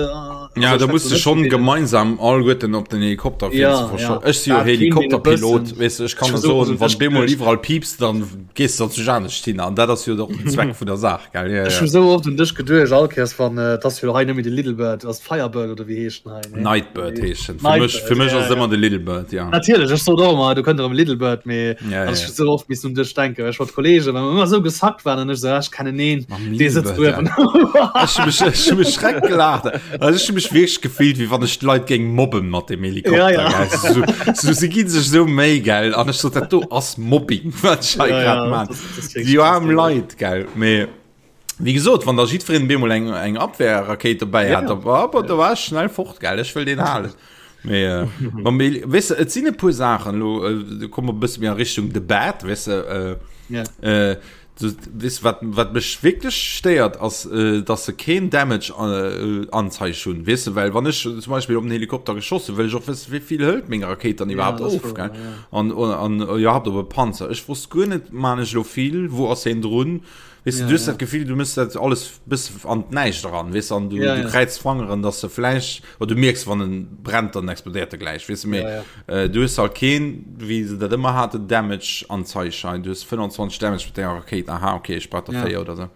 Ja, da muss de schonn gemeinsam alleguerten op den Helikopter fir ze verscho. Ech si jo Helikopterpilot, weess de, ech kann der soen, wann bemol iwwerall piipst, dann gees de zu anescht hin, an dat ass jo och den Zweck vun der Saach. Gell, ja, Ech hu sou oft un dech geduecht, all Kéiers wann, et ass jo hei net méi de Little Bird, ass Firebird oder wéi heescht en hei, nee? Nightbird heescht en. Fir mech, fir mech ass et ëmmer de Little Bird, ja. Natierlech, ech sot och ëmmer, do kënnt erëm Little Bird, mee ja, ja. ech hu sou oft missen un dech denken, well ech mat Kollegen, well mer ëmmer sou gesackt waren an ech sou, ah, ech kennen een, dee sëtzt uewen. Ech hu mech, ech hu mech schreck gelaacht. Also ech hu mech wierklech gefillt, wéi wann ech d'Leit géing mobben mat dem Helikopter, ja, ja. gell. So, so, si gi sech sou Méi, gell, an ech sot, dat do ass Mobbing, wat ech hei ja, grad ja, man. Déi aarm Leit, gell. Mee wéi gesot, wann da jiddwereen bemol eng, eng Abwehrrakéit dobäi hat, da war, aber da war ech schnell fort, gell. Ech wëll deen halen. Mee, äh, ma mee, weess de, et sinn e puer Saachen, elo äh, komme mer e bësse méi a Richtung The Bad, weess de, äh, Ja. äh, du, weess de, wat, wat mech wierklech stéiert, ass, äh, dass se keen Damage äh, Anzeig hunn, weess de, well wann ech zum Beispill op den Helikopter geschoss hunn, wëll ech och wëssen, wéi vill hëlt meng Rakéit dann Ja, iwwerhaapt dat ass of, wouer, gell. ja. An, an, an iwwerhaapt op e Panzer. Ech wosst guer net, maan ech elo vill, wou ass heen drun? Weess de, Ja, du hues ja. dat Gefill, du mëss dat alles bësse an d'Näischt eran, weess de, an du, Ja, du ja. kräiz d'Fangeren, dass se vläicht, oder du mierks, wann en brennt, dann explodéiert e gläich, weess de, mee Ja, ja. äh, du hues halt keen, wéi se dat ëmmer haten, Damage-Anzeigschein, du hues 25 Damage mat denger Rakéit, aha, okay, ech brauch der Ja. 4 oder sou.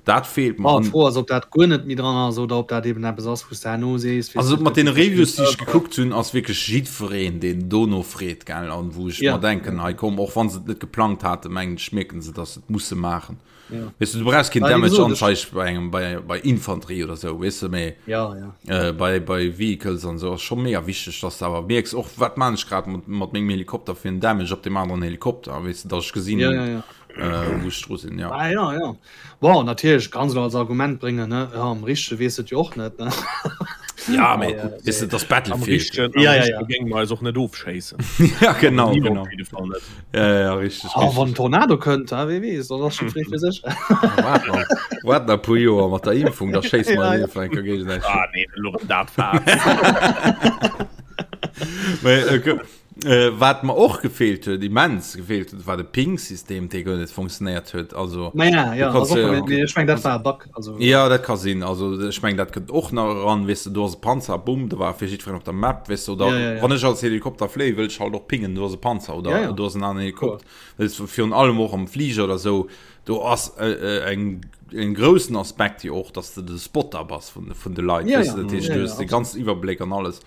Dat feelt mer. Bon, An d'Fro ass, ob dat guer net méi dran ass oder ob dat eben eppes ass, wou s de herno sees, weess Also de, mat et deene gëtt verschidde Reviews, déi ech Serveren. gekuckt hunn, ass wierklech jiddwereen, deen dono freet, gell, an wou ech Ja, mer denken, ja. hei komm, och wa se et net geplangt haten, mengen ech, mierken se, datt se et musse maachen. Ja. Weess de, du brauchs keen Well, wéi Damage gesot, ech. Anzeig bei engem, bei, bei Infanterie oder sou, weess de, mee Ja, ja. äh, bei, bei Vehicles an sou ass scho mega wichteg, datt s de awer mierks, och wat maan ech grad mat, mat mengem Helikopter fir en Damage op deem aneren Helikopter, weess de, datt ech gesinn, Ja, ja, ja. äh, wou ech dru sinn, ja. Ah, ja, ja. Bon, natierlech kanns elo als Argument bréngen, ne, jo, am Richtege weess et jo och net, ne? Ja, mee weess de, et ass Am Battlefield. Richtegen, am Ja, ja, Richtege ja. géinge mer eis och net ofschéissen. Ja, genau, Niemand genau. op jidde Fall net. Ja, ja, ja, richteg, Oh, wann richteg. en Tornado kënnt, ha, wee weess, dann ass scho fréi fir sech. Waart nach, waart nach e puer Joer mat der Impfung, da schéisse mer Ja, eis ja. einfach eng Kéier géigesäiteg. Ah, nee, elo rëm dat Faass. Mee, äh, Äh, wat mer och gefeelt huet, immens gefeelt huet, war de Ping-System, dee guer net funktionéiert huet. Also, Ma ja, du ja, kannst also, ja, nee, ech meng dat war e Bug. Also, ja, dat ka sinn. Also ech meng dat kënnt och nach eran, weess de, do ass e Panzer, bumm, do war fir jiddwereen op der Map, weess de, oder ja, ja, ja. wann ech als Helikopter fléie wëll ech halt och pingen, do ass e Panzer oder Ja, ja. do ass en aneren Kloer. Helikopter. Weess de, virun allem och am Fliger oder sou, do ass äh, äh, eng en groussen Aspekt jo och, dass de de Spotter bass vun, vun de Leit, Ja, weess ja. de, dat heescht, Ja, du ja, hues de absolut. ganzen Iwwerbléck an alles.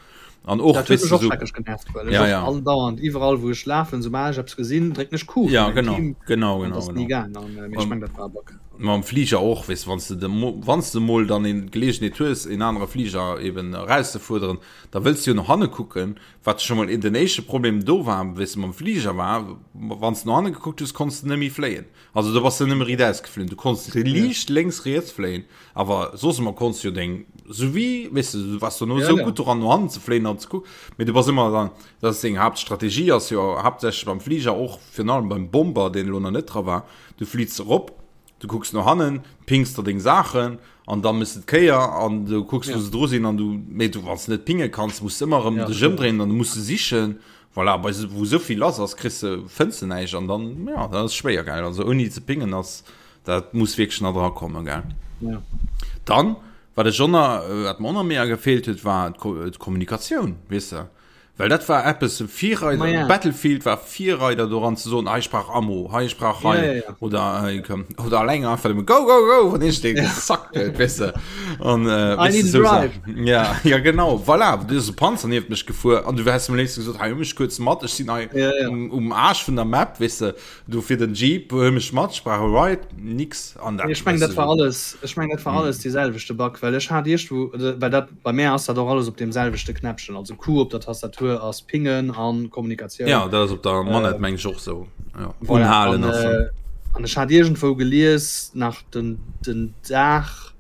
An och Dat huet weess mech de och sou schrecklech genervt, well ech ja och ja. andauernd iwwerall wou ech lafen, soubal ech eppes gesinn, drécken ech Q Ja fir mäin genau Team genau an genau et ass ni genau. gaang an mee ech Um meng dat war e Bug. Mam Fliger och, weess de, wann s de de, wann s de mol dann een d'Geleegenheet hues, een anere Fliger eben erauszefuerderen, da wëlls de jo no hanne kucken, wat scho mol den éischte Problem do war, weess de, mam Fliger war, wann s de no hanne gekuckt hues, konns de net méi fléien. Also do bass de nëmme riit-aus geflunn. Du konns liicht lénks, riets fléien, awer soss ëmmer konns du jo deng, sou wéi, weess de, du waars dono sou gutt doran, no hannen ze fléien an ze kucken, mee du bass ëmmer dann, dat ass deng Haaptstrategie, ass jo haaptsächlech beim Fliger, och virun allem beim Bomber, deen elo nach net dra war, du fliits erop, du kucks no hannen, pings der deng Saachen an da mëss de d'Kéier an du kucks, wou se dru sinn an du, mee du, wann s de net pinge kanns, muss de ëmmer erëm dech ëmdréinen an du muss se sichen. Voilà, bei wou esou vill lass ass, kriss de, fënns de näischt an dann, ja, dat ass schwéier, gell. Also ouni ze pingen ass, dat muss wierklech nach dra kommen, gell. Ja. Dann, wat ech och nach, wat mer och nach mega gefeelt huet, war d'Kommunikatioun, weess de. Well dat war eppes, Virreider, Ma ja. Battlefield war Virreider doran ze soen, hei ech brauch Ammo, hei ech brauch hei, Ja, ja, ja. oder, äh, komm, oder alleng einfach nëmme go, go, go, wann ech dee gesackt huet, weess de. An, äh, I weess need de, a sou drive. Saachen. Ja, ja genau, voilà, du ass e Panzer nieft mech gefuer an du häss am léifsten gesot, hei huel mech kuerz mat, ech sinn hei Ja, ja. um, um Aarsch vun der Map, weess de, du fir den Jeep, huel mech mat, ech brauch e Ride, nix. An dat, Ech meng weess dat de, war sou. alles, ech meng dat war alles dee selwechte Bug, well ech hat iergendwou, well dat Bei mär ass dat och alles op deem selwechte Knäppchen, also Q op der Tastatur ass Pingen an Kommunikatioun. Ja, dat ass op der Manette meng ech och sou. Ja, Voilà, unhalen an, ass dann. äh, an ech hat iergendwou gelies, nach den, den Dag,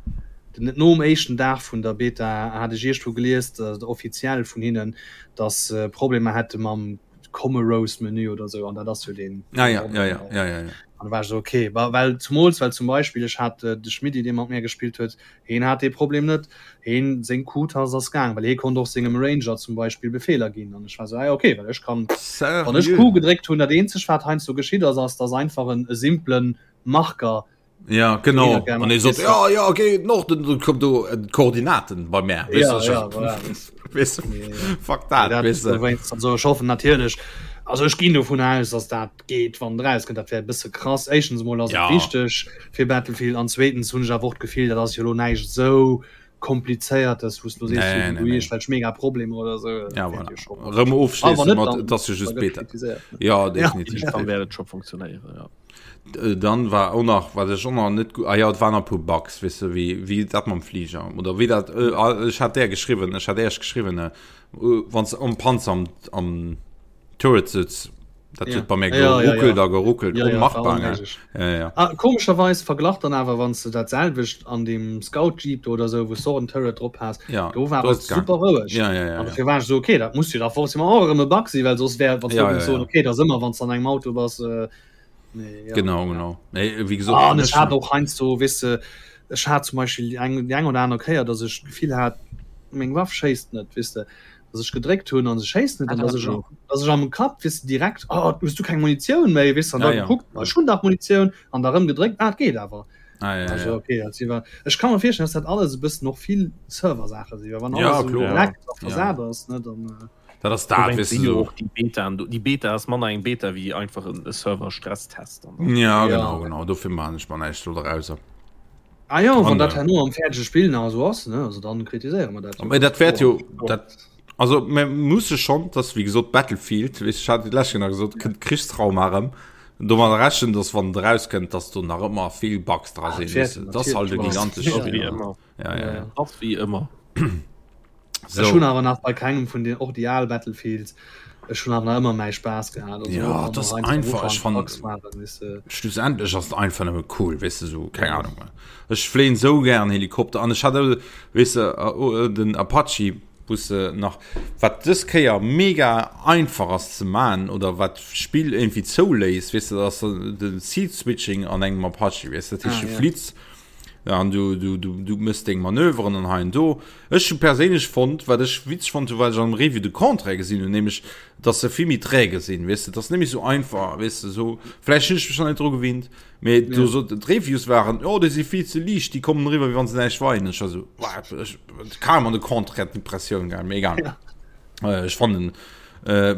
den, nom éischten Dag vun der Beta hat ech iergendwou gelies, dat offiziell vun hinnen, dass se Problemer hätte mam Commorose-Menü oder sou, an dat ass jo deen, Ah ja, ja, ja, ja, ja, ja. An da war ech sou, okay, well zumools, well zum Beispill ech hat de Schmidti, dee mat mär gespillt huet, Heen hat dee Problem net, heen, seng Q-Tast ass gaang, well hee konnt och sengem Ranger zum Beispill Befeeler ginn. An ech war sou, ah jo, okay, well ech kann, wann ech Q gedréckt hunn, dat eenzegt wat heiansdo geschitt ass, ass dass einfach en e simplen Marker Ja, genau. An ee sot, ja, ja, okay, Norden, dann kommt do äh, d'Koordinaten bei mär. Ja, ja, voilà. Weißt du, fuck dat, dat weißt du. Also ech hoffen natierlech, also ech ginn dovun aus, dass dat geet wann et erauskënnt, dat wär e bësse krass. Éischtens emol ass et Ja. wichteg fir Battlefield an zweetens hunn ech awer och d'Gefill, dat ass jo elo näischt esou komplizéiertes, wou s du elo sees, Nee, du nee, du nee. iergendwelch mega Problemer oder esou. Dat Ja, wäert voilà. jo scho. Rëm A wann ofschléisse net, mat, dann et ass jo da just gëtt Beta. kritiséiert, ne? Ja, Ja. definitiv. Dann wäert et scho funktionéieren, ja. Äh, Dann war och nach, wat ech och nach net gu-, ah ja, et waren nach e puer Bugs, weess de, wéi, wéi dat mam Fliger oder wéi dat, äh, ah, ech hat där geschriwwen, ech hat Iech geschriwwen, äh, wann s de am Panzer am, am Turret sëtz, dat huet bei mir geruckelt a geruckelt, onmachbar, gell? Ja, ja. Ah, komescherweis verglach dann awer, wann s de dat selwecht an deem Scout Jeep do oder sou, wou s de och en Turret drop has, Ja, do war do et ass et gaang. super roueg. Ja, ja, ja, An ja. dofir war ech sou, okay, dat muss jo da forcément och erëm e Bug sinn, well soss wär, wann s du Ja, géings ja, soen, ja. okay, dat ass ëmmer, wann s de an engem Auto bass, äh, nee, ja. Genau, genau. Nee, wéi gesot, Ah, an ech ech hat och heiansdo, weess de, ech hat zum Beispill déi eng, déi eng oder aner Kéier, datt ech d'Gefill hat, meng Waff schéisst net, weess de. dass ech gedréckt hunn an se schéisst net, an dass ech, dass ech am Kapp, weess de, direkt, oh, hues du keng Munitioun méi, weess de, an da Ja, ja. gekuckt, ech hunn dach Munitioun, an da rëm gedréckt, ah, et geet awer. Ah, ja, ja, Also, ja. okay, dat si war, ech ka mer virstellen, dass dat alles e bëssen och vill Server-Saache sinn, well wann Ja, alles esou kloer. leckt a Ja. versat ass, ne, dann. Äh, Dat ass dat, Dowéinst weess si de, jo so. och déi Betaen do. Déi Beta ass manner eng Beta wéi einfach en e Server-Stresstest dann. Ja, Ja. genau, genau. Dofir maachen ech mer näischt do drauser. Ah jo, wann An, dat äh, herno am fäerdege Spill nach esou ass, ne, also dann kritiséiere mer dat jo. Mee dat ganz wäert kloer. jo, dat, also mir musse schonn, dass wéi gesot Battlefield, weess ech hat déi lescht Kéier nach gesot, kënnt Krichstrauma erëm, domadder rechnen, dass wann et erauskënnt, dass do nach ëmmer vill Bugs dra Ah, sinn, dat weess wäert de, dat ass halt e natierlech. gigantescht Ja. Spill, Wéi ne? ëmmer. Ja, ja, ja. Ass wéi ëmmer. So. Ech hunn awer nach bei kengem vun den och déi al Battlefields ech hunn awer nach ëmmer mäi Spaass gehat. Also, Ja, och wann dat ass noch heiansdo am einfach, ech Ufank fannen Bugs waren, weess de. Schlussendlech ass et einfach nëmme cool, weess de, sou, keng Ahnung. Ech fléien sou gären Helikopter an ech hat, weess de, den Apache, wou s de nach, wat dës Kéier mega einfach ass ze man oder wat d'Spill irgendwie zouléisst, weess de, dat ass de Seat Switching an engem Apache, weess de, dat heescht, Ah, du ja. flitts an du, du, du, du mëss deng Manöveren an hei an do. Ech hu perséinlech fonnt, wat ech witzeg fonnt hu, wat ech am Review de Contraire gesinn hunn, nämlech, dass se vill méi träge sinn, weess de, dat ass net méi sou einfach, weess de, sou, vläicht hunn ech mech nach net dru gewinnt, mee do sot, d'Reviews waren, oh, déi si vill ze liicht, déi kommen eriwwer, wéi wann se näischt weien. Ech war sou, what, ech, carrément de Contraire d'Impressioun gehat, mee egal. Ech fannen,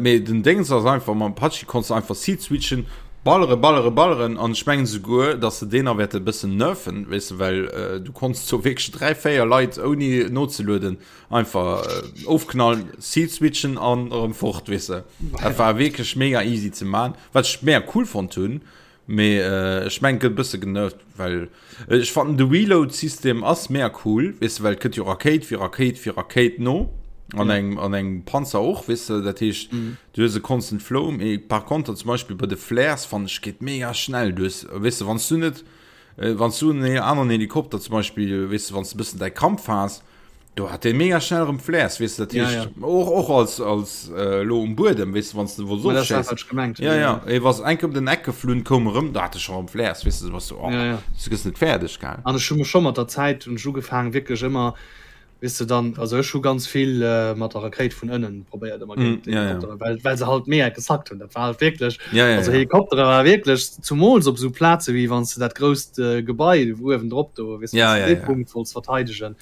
Mee den Déngs ass einfach, mam Apache konns de einfach Seat switchen, ballere, ballere, balleren an ech mengen souguer, dass se deen nach wäerte e bëssen nerfen, weess de, well du konns do wierklech 3, 4 Leit ouni nozelueden einfach ofknallen, Seat switchen an erëm fort, weess de. Dat war wierklech mega easy ze man, wat ech mega cool fonnt hunn. Mee ech mengen et gëtt e bësse genervt, well ech fannen de Reload-System ass mega cool, weess de, well et kënnt jo Rakéit fir Rakéit fir Rakéit no an engem an engem Panzer och, weess de, dat heescht du hues e constant flow. Mee par konter zum Beispill bei de Flares fannen ech geet mega schnell, du hues, weess de, wann s du net wann s du en aneren Helikopter zum Beispill, weess de, wann s de e bëssen däi Kampf has, Do hat dee mega schnell erëm Flares, weess de, dat heescht, ja, ja. och, och als, als äh, lo um Buedem, weess de, wann du wo so schéiss. Gemengt, ja, ja, ja. was enk op den Eck geflunn, koum erëm, da hat e scho erëm Flares, weess de, was du, oh, ja, ja. du gëss net fäerdeg, gell. An ech hu mech scho mat der Zäit hunn ech ugefaangen, wierklech ëmmer, weess de, dann, also ech hu ganz vill äh, mat der Rakéit vun ënnen probéiert ëmmer géint mm, ja, ja. well, well se halt mega gesackt hunn, dat war halt wierklech, ja, ja, also ja. Helikoptere war wierklech, zumools op esou Plaze wéi wann s de dat grousst äh, Gebai uewen drop do, weess de, ja, wann s ja, de dee ja. Punkt wollts verteidegen.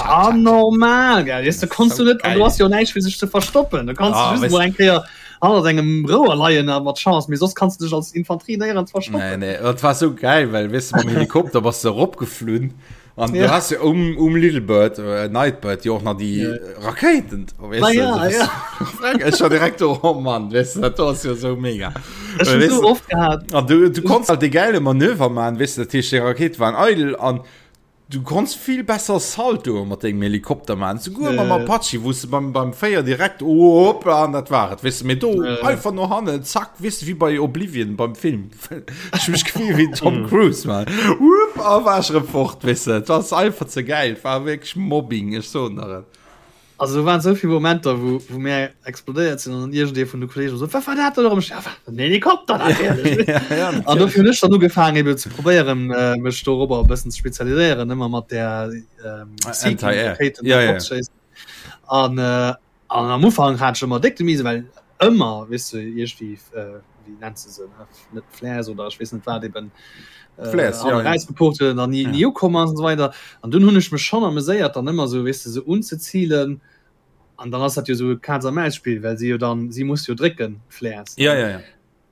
Anormal geil weißt du, konntest du net an du hast jo näischt fir sech ze verstoppen du kannst ah, just eng Kéier hannert engem Rouer leien a mat Chance mee soss kannst du dech als Infanterie néierens verstoppen. Nee, nee, dat war sou geil well weißt du, mam Helikopter bass du eropgeflunn an ja. du hast ja um, um Little Bird äh, Nightbird jo och nach déi ja. Rakéiten weißt du, ja, ja. Ech war direkt do, oh Mann weißt du, dat ass jo sou mega Ech hun weißt so du, oft gehabt. An du, du konntest halt de geile Manöver man weißt du, dat heescht, déi Rakéite waren eidel an Du konns vill besser Saltoe mat dengem Helikopter maachen, souguer mam Apache, wou s de beim, beim Féier direkt, hoppla, an dat war et, weess de. Mee do einfach no hannen, zack, weess de, wéi bei Oblivion beim Film. Ech hu mech gefillt wéi den Tom Cruise, man. Wupp, a war ech erëm fort, weess de. Et ass einfach ze gäil, et war wierklech Mobbing, ech soen der et. Also do waren souvill Momenter wou wou mär explodéiert sinn an dann iergendee vun de Kollegen sot, wat war dat dann erëm? Ech, ja, wat, den Helikopter natierlech. Ja, ja, An dofir hunn ech dann ugefaangen eben ze probéieren äh, mech dorobber e bëssen ze spezialiséieren, ëmmer mat där ähm, Anti-Air. Seeking-Rakéiten Ja, ja. opzeschéissen. An äh, an am Ufank hat ech ëmmer déck de Mise, well ëmmer, weess de, iergendwéi äh, wéi nennt se se, ne, net Flares oder ech weess net wat eben äh, Flares, ja, ja. rausgeport huet an dann nie, Ja. nie ukomm ass und so weiter. An dunn hunn ech mech schon ameséiert dann ëmmer so weess de se unzezilen an dann ass dat jo so e Katz a Maus Spill, well si jo dann si muss jo drécken d'Flares. Ja, ja, ja.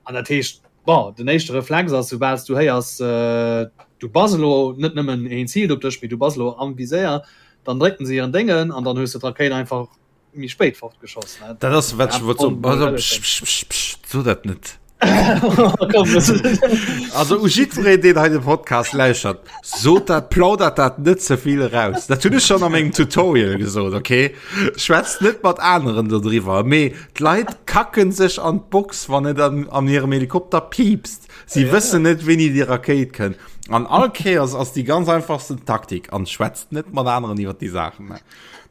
An dat heescht bon den éischte Reflex ass soubal s du héiers äh, du bass elo net nëmmen een ziilt op dech, mee du bass elo am Viséier, dann drécken se hiren Déngen an dann hues de d'Rakéit einfach méi spéit fortgeschoss ne? Dat ass wat ech wollt soen. Pass op, psch, psch, psch, psch, so dat net. Also u jiddwereen, deen hei de Podcast lauschert, sot dat, plaudert dat net ze vill eraus. Dat hunn ech schonn a mengem Tutorial gesot, okay? Schwätzt net mat aneren dodriwwer, mee d'Leit kacken sech an d'Box, wann et an, an hirem Helikopter piipst. Si wëssen net, wéini déi Rakéit kënnt. An all Kéiers ass déi ganz einfachsten Taktik, an schwätzt net mat aneren iwwer déi Saachen.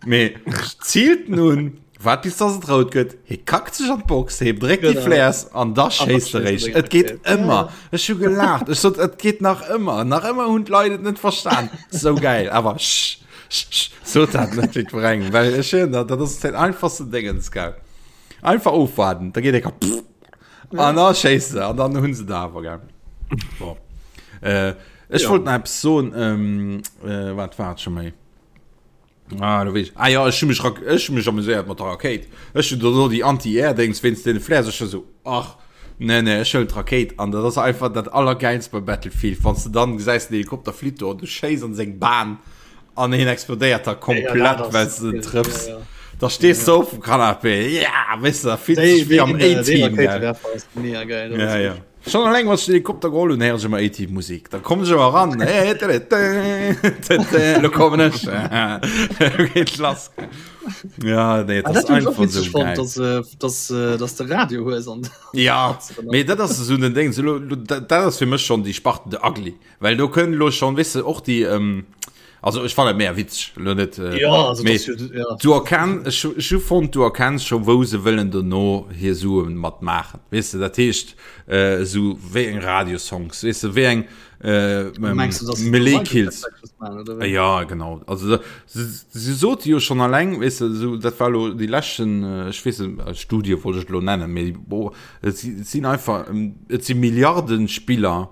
Mee zielt nun waart bis dass et rout gëtt, hie kackt sech an d'Box, hie dréckt déi Flares an da schéisst e réischt. Et geet ëmmer. Ech hu gelaacht, ech sot et geet nach ëmmer, nach ëmmer hunn d'Leit et net verstan. Sou gäil, awer sch, sch, sch, sot dat net jiddwerengem, well ech soen der, dat ass den einfachsten Déngens, gell. Einfach ofwaarden, da geet e Kapp an da schéisst se an dann hunn se der awer, gell. Bon. Ech wollt nach eppes soen, wat war et scho méi? Ah, du wees. Ah ja, ech hu mech, ech hu mech amuséiert mat der Rakéit. Ech hunn do déi Anti-Air-Dings wéinst deene Flares. Ech sou, ach, nee, nee, ech huelen d'Rakéit. An dat ass einfach dat Allergäilst bei Battlefield, wann s de dann gesäis, den Helikopter flitt do an du schéiss an seng Bahn an hien explodéiert da komplett, ja, well s de en trëffs. Ja, ja. Da stees du op dem Canapé, ja, weess de, da fills du dech wéi am A-Team, gell. Ja, ja. Schon alleng wann ech den Helikopter geholl hunn, héieren ech ëmmer A-Team Musik. Da kommen ech ëmmer ran. Lo kommen ech. Lo geet lass. Ja, nee, ah, dat dat ass einfach einfach so geil. Fand, dass, äh, dass, äh, dass de Radio hues an Ja, mee dat ass esou den Ding. So, lo, lo, dat ass fir mech schon déi Sparte de Ugly. Well do kënnen lo schon, weess de, och déi, ähm, also ech fannen et méi witzeg, lo net, äh, Ja, also mee das, ja. du erkenn, ech, ech hu fonnt, du erkenns scho wou se wëllen dono hir Suen mat maachen, weess de, dat heescht, äh, esou wéi eng Radiosongs, weess de, wéi eng, äh, Mengst du, dass sie Melee Kills. Microtransactions machen, oder wéi? Ja, genau. Also da, se, se sote jo schon alleng, weess de, esou, dat war lo déi leschten, äh, ech weess net, Studie wollt ech lo nennen, mee bo, et si, et sinn einfach, et si Milliarden Spiller,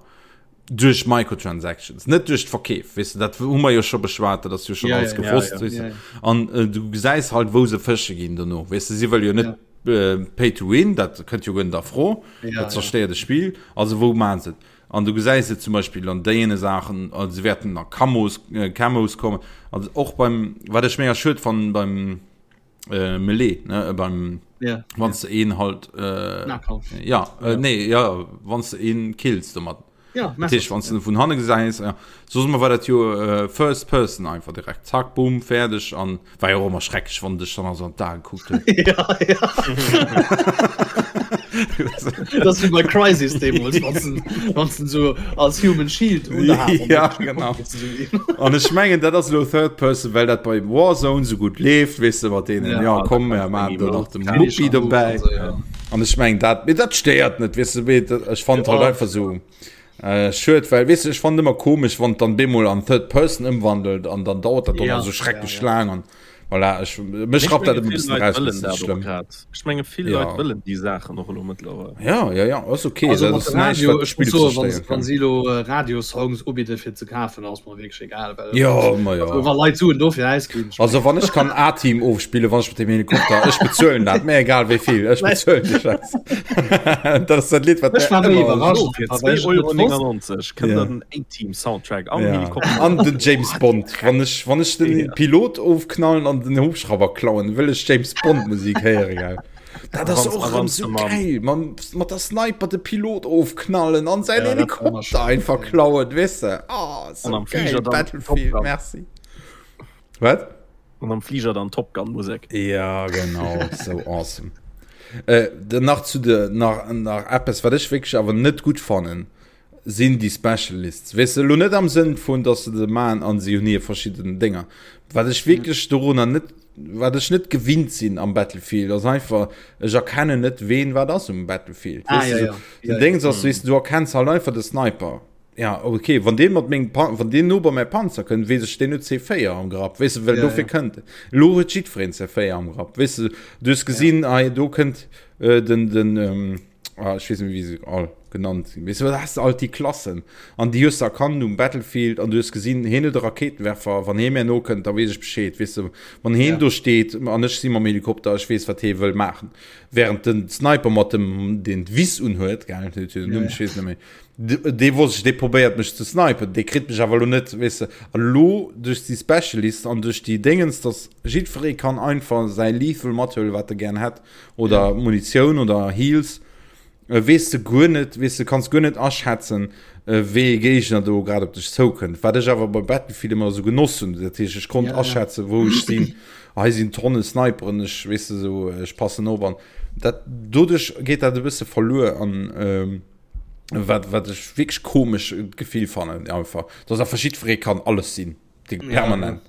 Duerch Microtransactions, net duerch d'Verkeef, weess de, dat hu mer jo scho beschwat, dat ass jo schon Ja, alles ja, ja, gewosst, ja, weess de. ja, ja. An äh, du gesäis halt, wou se fësche ginn dono, weess de, si wëlle jo net äh, Pay to win, dat kënnt jo guer net a Fro, Ja, dat ja. zerstéiert de Spill, also wou maachen se et? An du gesäis et zum Beispill an deene Saachen, also se wäerten a Camos, äh, Camos kommen, also och beim, wat ech mega schued fannen, beim äh, Melee, ne, beim. Ja. Wann du een halt äh, ja, äh, nee, ja, wann du een kills domat. Ja, Tisch, wann du vun hanne gesäis ja. So war dat jo äh, first person einfach direkt zack boom fäerdeg an war jo och ëmmer schrecklech wann dech dann also an d'Aen kuckt huet. ja, ja. das wie bei Crisis deemools, wann du so als Human Shield ja, genau. An ech mengen dat ass lo Third Person, well dat bei Warzone so gut leeft, weess de mat deenen ja, ja komm mir maachen do nach de Muppi dobäi. An ech mengen dat mee dat stéiert net, weess de mee ech fand halt einfach so äh, schued, well weess de ech fand ëmmer komesch, wann dann bemol an Third Person ëmwandelt an dann dauert dat ja, so schrecklech ja, ja. laang an Voilà, ech, mech rappt dat e bëssen raus, dat ass net schlëmm. Ech menge vill Leit ja. wëllen déi Saachen och elo mëttlerweil. Ja, ja, ja, ass okay. Also, dat ass näischt, wat d'Spill zerstéieren kann. Wann si elo äh, Radiosongs ubidde fir ze kafen, ass mer wierklech egal. Well, ja, ma ja. Also, wa Leit Suen dofir ausginn. Also wann ech kann A-Team ofspillen, wann ech mat dem Helikopter, ech bezuelen dat, mir egal wéi vill, ech bezuelen de Schäiss. Dat ass dat Lidd, wat Ech war méi iwwerrascht, Fir 2,99 Euro kënnt der den A-Team Soundtrack am ja. Helikopter. An den James Bond. Wann ech, wann ech den ja. Pilot ofknallen an den Hubschrauber klauen, wëll ech James Bond Musik héieren. Gell? Dat ass och erëm so geil. Man, mat der Sniper de Pilot ofknallen an säin ja, Helikopter einfach klauen, weess de. Oh, so an am Flieger geil. Battlefield, merci. Wat? An am Flieger dann Top Gun Musek. Ja, genau, so awesome. Äh, nach zu de nach nach eppes wat ech wierklech awer net gutt fannen sinn déi Specialists. Weess de, elo net am Sënn vun, dass se se maachen an si hunn hir verschidden Dénger. Wat ech wierklech dorunner net, wat ech net gewinnt sinn am Battlefield, ass einfach, ech erkennen net, ween wat ass um Battlefield. Ah, Weess de, ja, so, ja. den Ja, ja. Déngs ass, weess de, du erkenns halt einfach de Sniper. Ja, okay, wann dee mat mengem Pan-, wann deen no bei mäi Panzer kënnt, weess ech, deen huet C4 am Grapp, weess de, well Ja, dofir ja. kënnt en. Elo huet jiddwereen C4 am Grapp, weess de, du hues gesinn, hei do kënnt äh, den, den, ähm, ah, ech weess net méi, wéi se all genannt sinn. Weess du, da has de alt déi Klassen an déi hues de erkannt um Battlefield an du hues gesinn, hien huet e Rakéitenwerfer, wann hie mär nokënnt, da weess ech Bescheed, weess de, wann hien Ja. do steet an ech si mam Helikopter, ech weess, wat hie wëll maachen. Während den Sniper mat dem, deen d'Wiss unhuet, gell, huet jo den Numm, Ja, ech weess net méi, dee wosst ech, dee probéiert mech ze snipen, dee kritt mech awer elo net, weess de. An elo duerch déi Specialist an duerch déi Déngens, dass jiddweree kann einfach säi Lethal mathuelen, wat e gären hätt, oder Munitioun oder Heals, weess de guer net, weess de, kanns guer net aschätzen, wéi ee Géigner do grad op dech zoukënnt. Wat ech awer bei Battlefield ëmmer esou genoss hunn, dat heescht, ech konnt aschätzen, wou ech sinn, hei sinn Tonne Sniperen, ech, weess de, esou, ech passen op an dat, doduerch geet dat e bësse verluer an wat, wat ech wierklech komesch Gefill fannen einfach, dass einfach jiddweree kann alles sinn. Ja, permanent.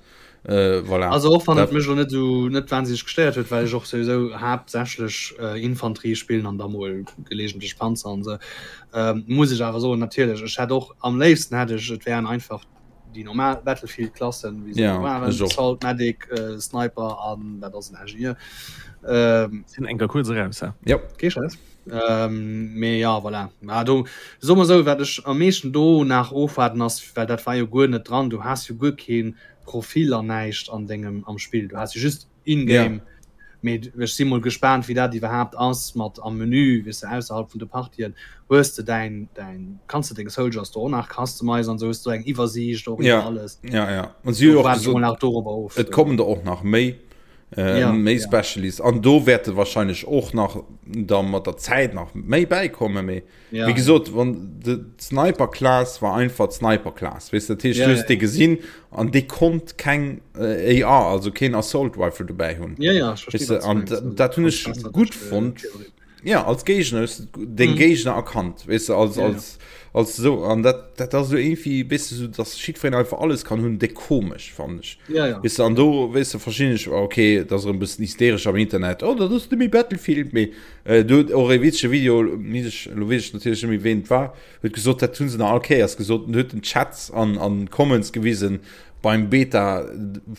Äh, voilà. Also och wann et mech lo net sou net wahnsinneg gestéiert huet, well ech och souwisou haaptsächlech äh, Infanterie spillen an da mol gelegentlech Panzer an sou, ähm, muss ech awer soen, natierlech, ech hätt och am léifsten hätt ech et wären einfach déi normal Battlefield-Klassen, wéi se Ja, elo waren, ech och. Assault, Medic, äh, Sniper an dat ass en Ingenieur. Ähm, Sinn enker kuerz eraus, hä? Ja. Kee Stress. Ähm, mee ja, voilà. Ja, do, soe mer esou, wat ech am meeschten do nach ofwaarden ass, well dat war jo guer net dran, du has jo guer kee Profil an näischt an dengem am Spill, du has jo just in-game. Ja. Mee ech si mol gespaant, wéi dat iwwerhaapt ass mat am Menü, weess de, ausserhalb vun de Partien, hues de däin, däin, kanns de deng Soldiers do och nach customizen an esou, hues du eng Iwwersiicht och Ja, iwwer alles. ja, ja. An si hu Do jo och waarde ech mol gesot, nach dorobber of. et kommen der och nach méi. Äh, ja, méi ja. Specialist an do wäerte wahrscheinlich och nach da mat der Zäit nach méi bäikomme méi ja, wie gesot wann de Sniper Class war einfach Sniper Class weißt du, dat heescht, ja, du hues ja, dee gesinn an dee konnt keng äh, AR also keen Assault Rifle dobäi hunn ja, ja, ich verstehe, weißt du, was du an meinst. Also, dat hunn ganz ech besser gutt durch, äh, fonnt Theorie. Ja als Géigner hues du den Mhm. Géigner erkannt weißt du, als, Ja, ja. als, als so an dat dat ass so irgendwie bist du so dass jiddwereen einfach alles kann hunn déck komesch fand ech Ja, ja. weißt du, an do weißt du verschinn ech okay dat ass erëm bëssen hysteresch am Internet oh dat ass net méi Battlefield mee äh, do huet och e witzege Video mis ech lo weess ech natierlech net méi ween et war huet gesot dat hunn se nach all Kéiers gesot en huet den Chats an an Comments gewisen beim Beta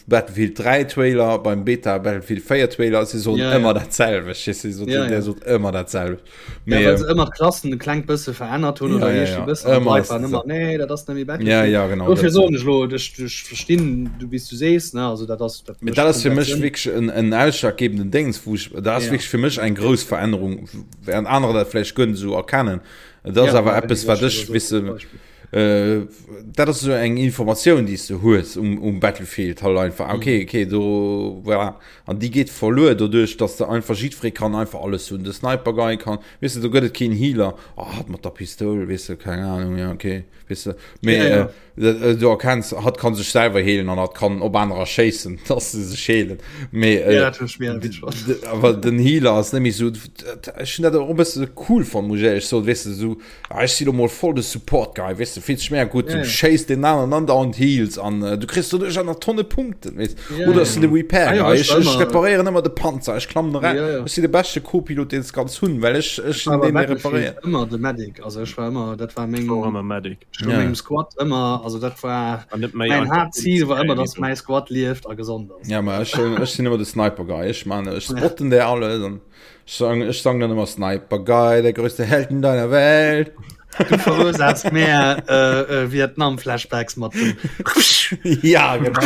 Battlefield 3 Trailer, beim Beta Battlefield 4 Trailer, si soen Ja, ja. ëmmer dat selwecht. Si sot, Ja, der ja. sot ëmmer dat selwecht. Ja, Mee, well se ëmmer d'Klassen e klengt bësse verännert hunn Ja, oder ja, iergendwéi ja. bëssen an Ëmmer d'Leit ass waren dat ëmmer, nee, dat ass net méi ja, Battlefield. ja, genau. Dofir Dat, soen ech lo, ech, ech verstinn, du wéi s du sees, ne, also dat ass, dat Mee mécht dat ass fir komplett mech Sënn. wierklech en, en ausschlaggebenden Déngs, wou ech, dat ass Ja. wierklech fir mech eng grouss Verännerung, während anerer dat vläicht guer net esou erkennen. Dat ass Ja, awer ja, eppes, wéi wat ech ech, elo weess sot de, als Beispill. Äh, dat ass esou eng Informatioun, déi s de hues um, um Battlefield halt einfach. Mm. Okay, okay, do, voilà. An déi geet verluer doduerch, dass de einfach jiddweree kann einfach alles hunn. De Sniper Guy kann, weess de, do gëtt et keen Healer. Oh, hat mat der Pistoul, weess de, keng Ahnung, ja, okay, weess de. Mee, ja, ja. Äh, äh, du erkenns, hat kann sech selwer heelen an hat kann op anerer schéissen, dass se sech heelen. Mee, äh, ja, awer den Healer ass net méi sou, ech hunn dat och e bësse cool fonnt, muss ech éierlech soen, weess de, sou, Ah, ech si lo mol voll de Support Guy, weess de, fills dech mega gutt, du schéiss deen aneren andauernd Heals an du kriss doduerch aner Tonne Punkten, weess. Oder ech sinn de Repair Guy, ech, ech reparéieren ëmmer de Panzer, ech klammen eran, ech sinn de beschte Co-Pilot, deen s kanns hunn, well ech, ech sinn deen, dee reparéiert. Ëmmer de Medic, also ech war ëmmer, dat war meng, ech war ëmmer Medic, ech war mengem Squad ëmmer, also dat war mäin Haaptzil war ëmmer, dass mäi Squad lieft a gesond ass. Ja, ma ech, ech sinn ëmmer de Sniper Guy, ech man, ech spotten där alles an. Sang, ech sang dann immer Sniper Guy, der größte Held in deiner Welt. Du verursaachs mehr äh, äh, Vietnam-Flashbacks mat dem. ja, genau.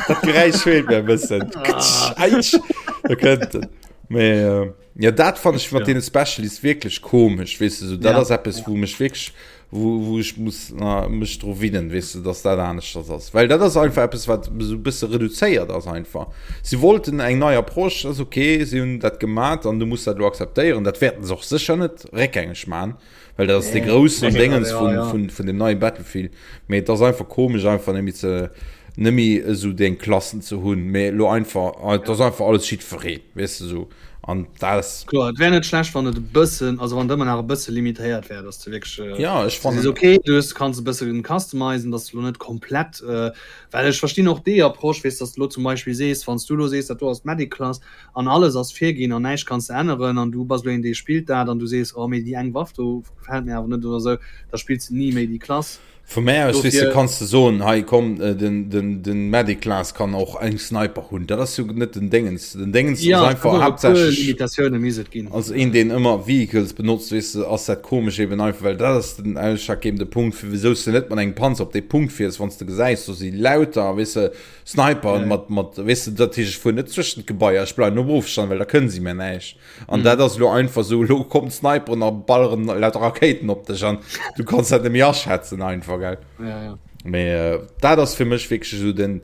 Dat Geräisch fehlt mir e bëssen. Ah. Aitsch. Da kënnt en. Mee, äh, ja, dat fand ech mat ja. deene Specialists wierklech komesch, weess du, so, dat ja. ass eppes, wou mech wierklech wou, wou ech muss na, mech dru winnen, weess de, dass dat aneschters ass. Well dat ass einfach eppes, wat esou e bësse reduzéiert ass einfach. Si wollten eng nei Approche, ass okay, si hunn dat gemat an du muss dat elo akzeptéieren. Dat wäerten se och sécher net réckgängeg man, well dat ass de groussen Déngens vun, vun, vun dem neie Battlefield. Mee et ass einfach komesch einfach net méi ze net méi esou deng Klassen ze hunn, mee elo einfach, et ass einfach alles jiddweree, weess de esou. An dat ass. Kloer, et wär net schlecht, wann et e bëssen, also wann et ëmmer nach e bësse limitéiert wär, dass de wierklech. Ja, ech fannen. Sees, okay, du hues, kanns e bësse customizen, dass de lo net komplett, well ech verstinn och déi Approche, weess, dass de lo zum Beispill sees, wann s du lo sees, dat do ass d'Medic-Klass an alles ass virginn an näischt kanns de änneren an du bass lo een, dee spillt dat an du sees, oh mee déi eng Waff do gefält mir awer net oder esou, da spills de ni méi déi Klass. Vu mär aus, weess de, kanns de soen, hei komm, den, den, den Medic Class kann och eng Sniper hunn. Dat ass jo net den Déngens. Den Déngens ass einfach haaptsächlech. Limitatioune misst et ginn. Als een, deen ëmmer Vehicles benotzt, weess de, ass dat komesch eben einfach, well dat ass den ausschlaggebende Punkt, fir wisou s de net mat engem Panzer op dee Punkt fiers, wann s de gesäis, do si lauter, weess de, Sniper mat, mat, weess de, dat heescht, ech fuer net zwëschent d'Gebaier, ech bleiwen um Ofstand, well da kënne si mir näischt. An mm. dat ass lo einfach so lo kommt Sniperen a balleren lauter Rakéiten op dech an du kannst dat nemmi aschätzen einfach gell. Ja, ja. Mee äh, dat ass fir mech wierklech so den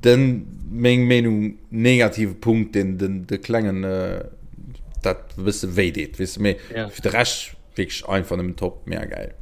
den meng Meenung negative Punkt den den de klengen äh, dat bësse wéi deet wis méi ja. fir de Recht wierklech einfach nëmmen top mega geil.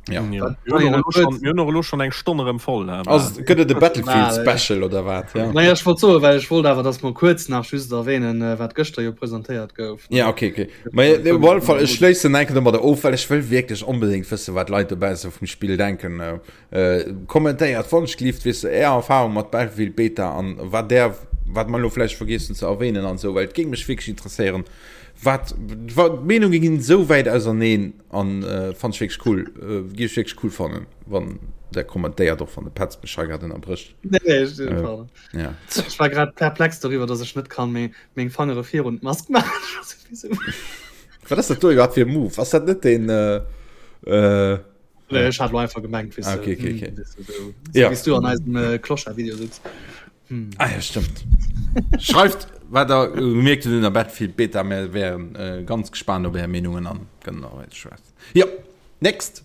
Ja. Ja. Mir hunn och elo schon- mir hunn och elo schon eng Stonn erëm voll. ne? Also, gëtt et e Battlefield Special oder wat? Ja. Naja, ech wollt soen, well ech wollt awer, dass mer kuerz nach just erwähnen, äh, wat gëschter jo presentéiert gouf. Ja, okay, okay. Ma ja, op alle Fall, ech schléissen enke domadder of, well ech wëll wierklech onbedéngt wëssen, wat d'Leit dobausse vum Spill denken. Äh, äh, kommentéiert wannschgelift, weess de, är Erfahrung mat Battlefield Beta an wat där, wat mer elo vläicht vergiess hunn ze erwähnen an esou, well et géing mech wierklech interesséieren, wat, wat, d'Meenunge ginn esou wäit auserneen. An äh, fand ich wirklich cool. Äh, gi ich wirklich cool fannen, wann der kommentéiert och wann de Petz mech hei grad ënnerbrécht. Nee, nee, ich, äh, ja. ich war grad perplex darüber, dass ich net kann meng, meng Fangere virun d'Mask machen. Wat ass dat do iwwerhaupt fir e Move? Ass dat net den äh, äh, Nee, ich hat einfach gemengt, weißt ah, okay, okay, okay. Hm, so, so, ja. Wie's du an eisem äh, Clochard-Video sitzt. Hm. Ah ja, stimmt. Schreift, wat der gemierkt hutt un der Battlefield Beta. Mir wären äh, ganz gespannt op är Meenungen an kënnen nach weiter schwätzen. Ja, next.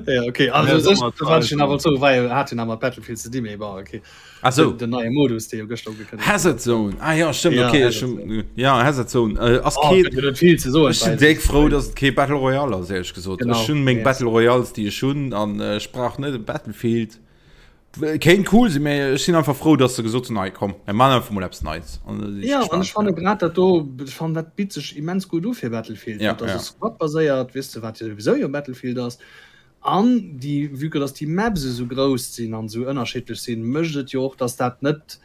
Ja, okay. Also, ja, sech, wat ich awer zo war hat den awer Battlefield ze di méi war okay. Ach so. Den, den neie Modus dee jo gëschter ugekënnegt. Hazard Zone. Ah ja, stimmt, ja, okay. Hazard Zone. Ja, Hazard Zone. Äh, ass oh, kee, net viel ze soen. Ech sinn déck frou, dass et kee Battle Royale ass, ehrlech gesot. Genau. Ech hunn meng yes. Battle Royales, déi ech hunn an äh, ech brauch net e Battlefield. Kéint cool sinn, mee ech sinn einfach frou, dass se gesot hunn, hei komm, mir maachen einfach mol eppes Neits. An da sinn ech Ja, an gespaant. ech fanne grad dat do, ech fannen dat bitt sech immens gutt u fir Battlefield, Ja, dat ass ja. e Squad-baséiert, weess de, wat jo souwisou jo Battlefield ass. An déi, vue que dass déi Maps esou grouss sinn an esou ënnerschiddlech sinn, mécht et jo och, dass dat net,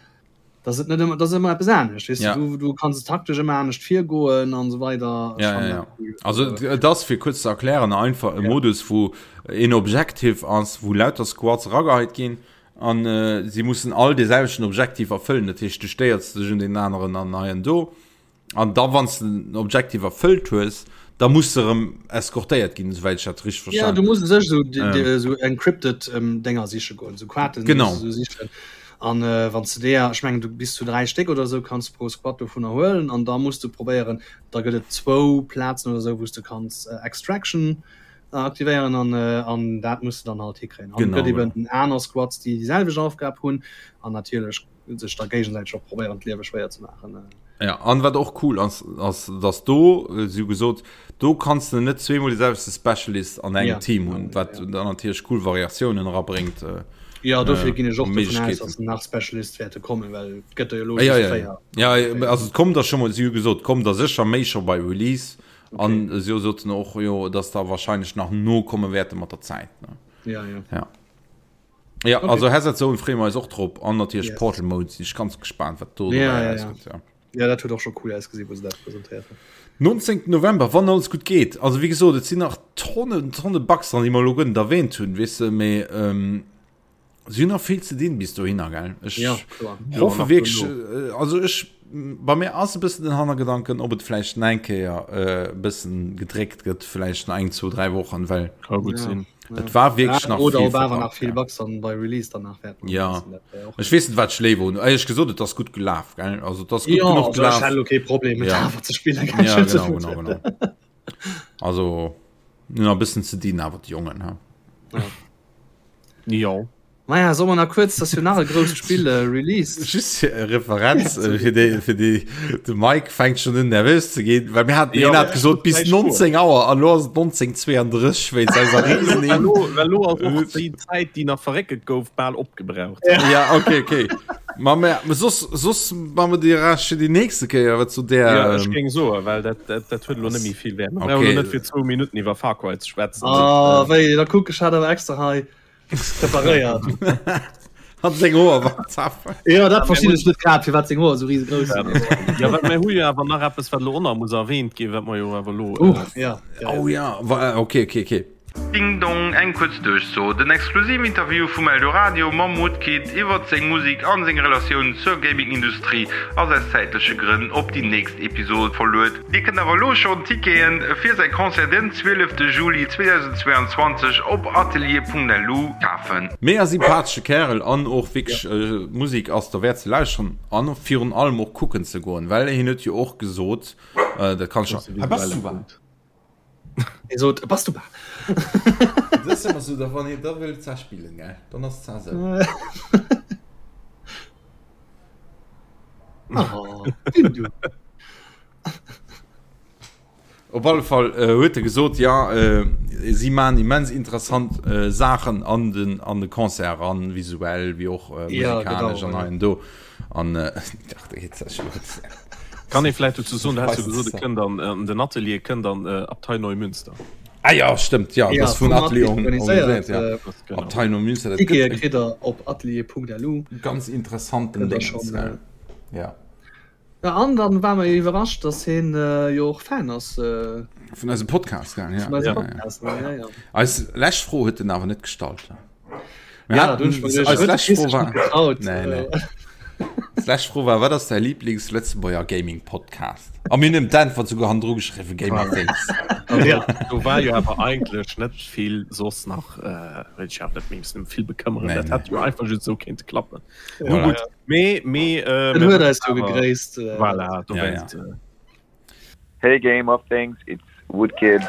dass et net ëmmer, dass ëmmer eppes anescht, weess de, Ja. du, du kanns taktesch ëmmer anescht virgoen an esou weider. Ech Ja, fannen ja, dat ja. cool. Also Also, et ass, fir kuerz ze erklären, einfach e ja. Modus, wou een Objective ass, wou lauter Squads erageheit ginn an äh, si mussen all dee selwechten Objective erfëllen. Dat heescht, du stéiers dech un deen aneren an hei an do. An da wann s de den Objective erfëllt hues, da muss de erëm eskortéiert ginn, esouwäit ech dat richteg Ja, verstan. du muss u sech esou Ähm. ähm. esou encrypted ähm, Dénger siche goen, esou Quaten Genau. muss du sichen. An äh, wann du deeër, ech mengen du bis zu 3 Stéck oder esou kanns pro Squad dovunner huelen an da muss du probéieren, da gëtt et zwou Plazen oder esou, wou s du kanns äh, Extraction. Aktivéieren an, an dat muss de dann halt hikréien. An gëtt eben aner Squads, déi déi selwecht Aufgab hunn an natierlech sech da géigesäiteg och probéieren d'Liewe schwéier ze maachen. Ja, an wat och cool ass, ass dass do, si hu gesot, do kanns de net zweemol de selwechte Specialist an engem ja. Team hunn, wat ja. dann natierlech cool Variatiounen erabréngt. Äh, ja, dofir ginn ech och dovun aus, dass nach Specialist wäerte kommen, well et gëtt der jo lo ja, ja, ja. Ja, also et kommt der schon mal, si hu gesot, kommt der sécher méi scho bei Release. Okay. An si soten och jo, dass da wahrscheinlech nach nokomme wäerte mat der Zäit. Ne? Ja, ja. Ja. Ja, okay. also Hazard Zone freeë mer eis och drop an natierlech yes. Portal Mode sinn ech ganz gespannt, wat do ja, ja, ja. Gëtt, ja. ja, dat huet och scho cool ausgesinn, wou se dat presentéiert hunn. 19. November, wann alles gutt geet. Also wéi gesot, et sinn nach Tonnen, Tonne Bugs dran, déi mer elo guer net erwähnt hunn, weess de, mee ähm, Si hunn nach vill ze dinn bis dohinner, gell? Ech ja, klar. hoffe wierklech, äh, also ech, bei mir ass e bëssen den Hannergedanken, ob et vläicht nach eng Kéier e äh, bëssen gedréckt gëtt, vläicht nach eng, zwou, dräi Wochen, well Ka gutt ja. sinn. Et war wierklech ja, nach oder vill ob awer verpackt, nach vill ja. Bugs dann bei Release danach wäerten Ja. sinn, dat wär och Ech weess net, wat ech léiwer hunn. Éierlech gesot, et ass gutt gelaf, gell? Also et ass gutt Ja, genuch also ech gelaf. hätt elo kee Problem, et Ja. awer ze spillen, ganz Ja, schön ze genau, genau, genau. Also hunn nach e bëssen ze dinn awer déi Jongen, ha. Ja. Jo. Maja, soll mer nach kuerz, dass jo nach e grousst Spill äh, released. Just fir e Referenz äh, fir déi, fir déi, de Mike fänkt schon un nervös ze ginn, well mir haten Ja, hien hat gesot bis gläich fuer. 19 Auer an lo ass et 19:32 wéinst eiser Riesen. Well lo, well lo ass och déi Zäit, déi nach verréckelt gouf, bal opgebraucht. Ja, okay, okay. Ma mer, soss, soss ma mer déi Rescht fir déi nächste Kéier, wat zu der. Ja, ech géing soen, well dat, dat, dat huet elo net méi vill Wäert. Mer Okay. brauchen elo net fir zwou Minutten iwwer Far Cry ze schwätzen. Ah, wéi, da kuck, ech hat awer extra hei preparéiert. Hat seng Hoer war zaf. Ja, dat verstinn ech net grad, firwat seng Hoer esou riesegrouss sinn. Ja, well mir hu jo awer nach eppes, wat elo och nach muss erwähnt ginn, wat mer jo awer elo. Uh, ja, ja, Oh ja, wa, okay, okay, okay. Ding Dong, eng kuerz Duerchso, Den exklusiven Interview vum Eldoradio mam Woodkid iwwert seng Musek an seng Relatioun zur Gaming-Industrie ass aus zäitleche Grënn op déi nächst Episod verluet. Dir kënnt awer elo schonn Tickete fir säi Concert den 12 Juli 2022 op atelier.lu kafen. Mega sympathesche Kärel an och wierklech Musek ass derwäert ze lauschteren an virun allem och kucken ze goen, well hien huet jo och gesot, dat kann ech. Hei bass du wat? Hie sot, Bass du bal? Dat ass ëmmer sou, da wann hien da wëll za spillen, gell, dann ass za sou. Oh, du. Op alle Fall äh, huet e gesot, ja äh, si man immens interessant äh, Saachen an den, an de Concert an, visuell wéi och äh, Ja, musikalesch genau, an ja. hei an do. An äh, ach, da geht's ja schon los. Kann ee vläicht dozou soen, du has jo gesot, e kënnt an, an den Atelier kënnt an äh, Abtei Neumünster. Ah ja, stëmmt, ja, Ja, das vun vum Atelier Atelier organiséiert, organiséiert, ja. äh, Das, genau. Abtei Neumünster, dat Tickete gëtt e kritt der op atelier.lu. ganz interessanten Kënnt der Dingens, schon, gell. äh, Ja. Ja, an dann war mer iwwerrascht, dass hien äh, jo och Fan ass äh, Vun eisem Podcast, gell, ja. vun eisem Ja, ja. Podcast. Ja, ja, ja. Eis lescht Fro huet en awer net gestallt. Mir Ja, haten, du hast mir eis gedacht, lescht huet Fro sich war, nicht getraut. Nee, nee. Äh, D'lescht Fro war, wat ass däi Lieblings-Lëtzebuerger Gaming-Podcast? A mir hunn ëm d'Äntwert souguer hannendru geschriwwen, Gamer Things. Also, ja. Do war jo awer eigentlech net vill soss nach, äh, wëll ech awer net méi missen ëm vill bekëmmeren. Nee, Dat nee. hätt jo einfach just esou kéinte klappen. Ja. Nun gutt, mee, mee, äh, En mir huet wëssen eis jo awer- gegréisst. Äh, Voilà, Ja, ja. dowéinst. Äh, Hey Game of Things, it's Woodkid.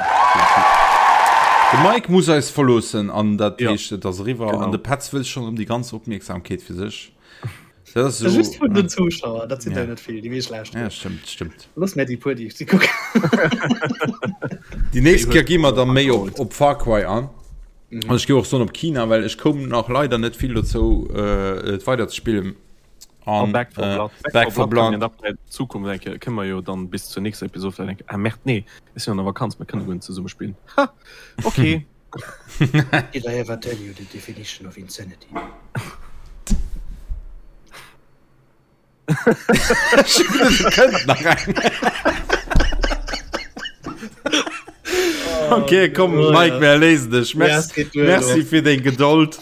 De Mike muss eis verloossen an dat Ja. heescht, et ass eriwwer Genau. an de Petz wëll schonn erëm déi ganz Opmierksamkeet fir sech. Dat ass Just esou, vun den Zuschauer, dat sinn Ja. der net vill, déi meescht lauschteren. ja, stëmmt, stëmmt. Looss mär déi puer, déi si kucken. Déi nächst Kéier gi mer da méi op, op Far Cry an. An ech gi och soen op China, well ech koum nach leider net vill dozou, äh, et weider ze spillen. An An, Back 4 äh, Blood. Back 4 Blood. Blood. Kann Zukunft denke kënne mer jo dann bis zur nächster Episode vielleicht denken, ah Merde, nee, ech sinn an der Vakanz, mir kënne guer net zesumme spillen. Ha! Okay. Did I ever tell you the definition of insanity? Kënnt nach eng. Okay, komm, Oh, Mike, ja. mir erléisen dech. Ja, Merci, es geht duer, merci lo. fir deng Gedold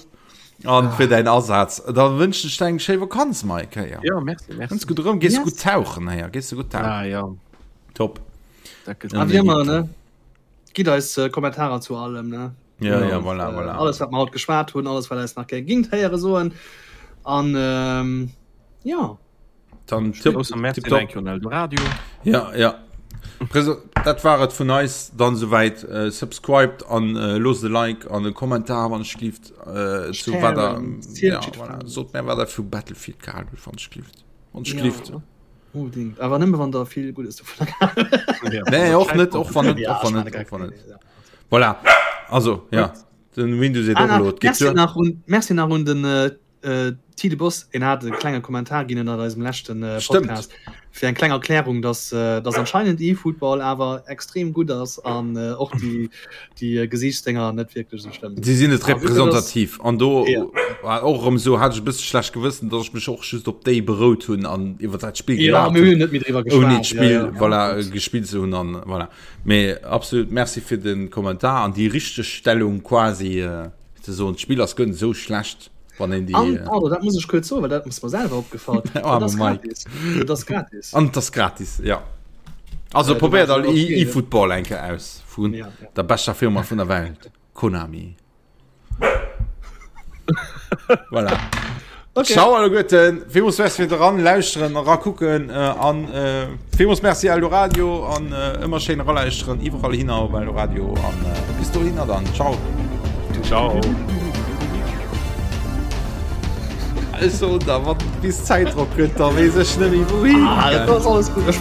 an fir däin Asaz. Da wënschen ech der eng schéi Vakanz, Mike. Héier. Ja, merci, merci. Ganz gutt erëm. Gees du Yes. gutt tauchen, héier. Gees du gutt tauchen. Ah ja, Top. dat gëtt A wéi ëmmer, ne? Gitt eis äh, Kommentarer zu allem, ne? Ja, ja, Und, voilà, äh, voilà. Alles, wat mer haut geschwat hunn, alles, wat eis nach gär gingt héiere soen. An ähm, ja. Dann tipp, Grousser Merci tipptopp. un Eldoradio. Ja, ja. Dat war et vun eis dann souwäit. Äh, subscribed an äh, loosst e Like an e Kommentar wann ech gelift äh, zu wat der ja, voilà. sot mir wat der vu Battlefield gehalen hutt wann ech gelift. Wann ech gelift. Ja. Unbedingt. Awer nëmme wann der vill Guddes dovun ja. Nee, och net och wann net och wann net och wann net. Voilà. Also ja den Windows ah, Merci nach un, Merci nach un den äh, Äh, Tide Boss, en hat e klenge Kommentar ginn ënnert eisem leschten äh, Podcast fir eng kleng Erklärung, dass, äh, dass anscheinend eFootball awer extrem gutt ass an äh, och déi, déi äh, Gesiichtsdénger net wierklech sou schlëmm sinn. Si sinn net representativ an do ja. war och erëm sou hat ech e bësse schlecht Gewëssen, dass ech mech och just op déi berout hunn an iwwer dat Spill ja, mir hunn net méi driwwer geschwat ouni d'Spill ja, ja. voilà, gespillt ze hunn an voilà. Mee absolut Merci fir den Kommentar an déi Richtegstellung quasi. Äh, Ze soen, d'Spill ass guer net esou schlecht, wann een déi. An, pardon, dat muss ech kuerz soen, well dat ass mer selwer opgefall. Oh, Et ass gratis. Et ass gratis. An et ass gratis, ja. Also probéiert all eFootball eng Kéier aus vun der beschter Firma vun der Welt, Konami. Voilà. Okay. Ciao alleguerten, villmools Merci fir eran lauschteren, erakucken an villmools Merci Eldoradio an ëmmer schéin eralauschteren iwwerall hinner op Eldoradio an bis dohinner dann. Ciao. Ciao. Also da wann bis Zäitdrock gëtt, da weess ech net méi wouhin. Ah, dat ass alles gutt. Ech.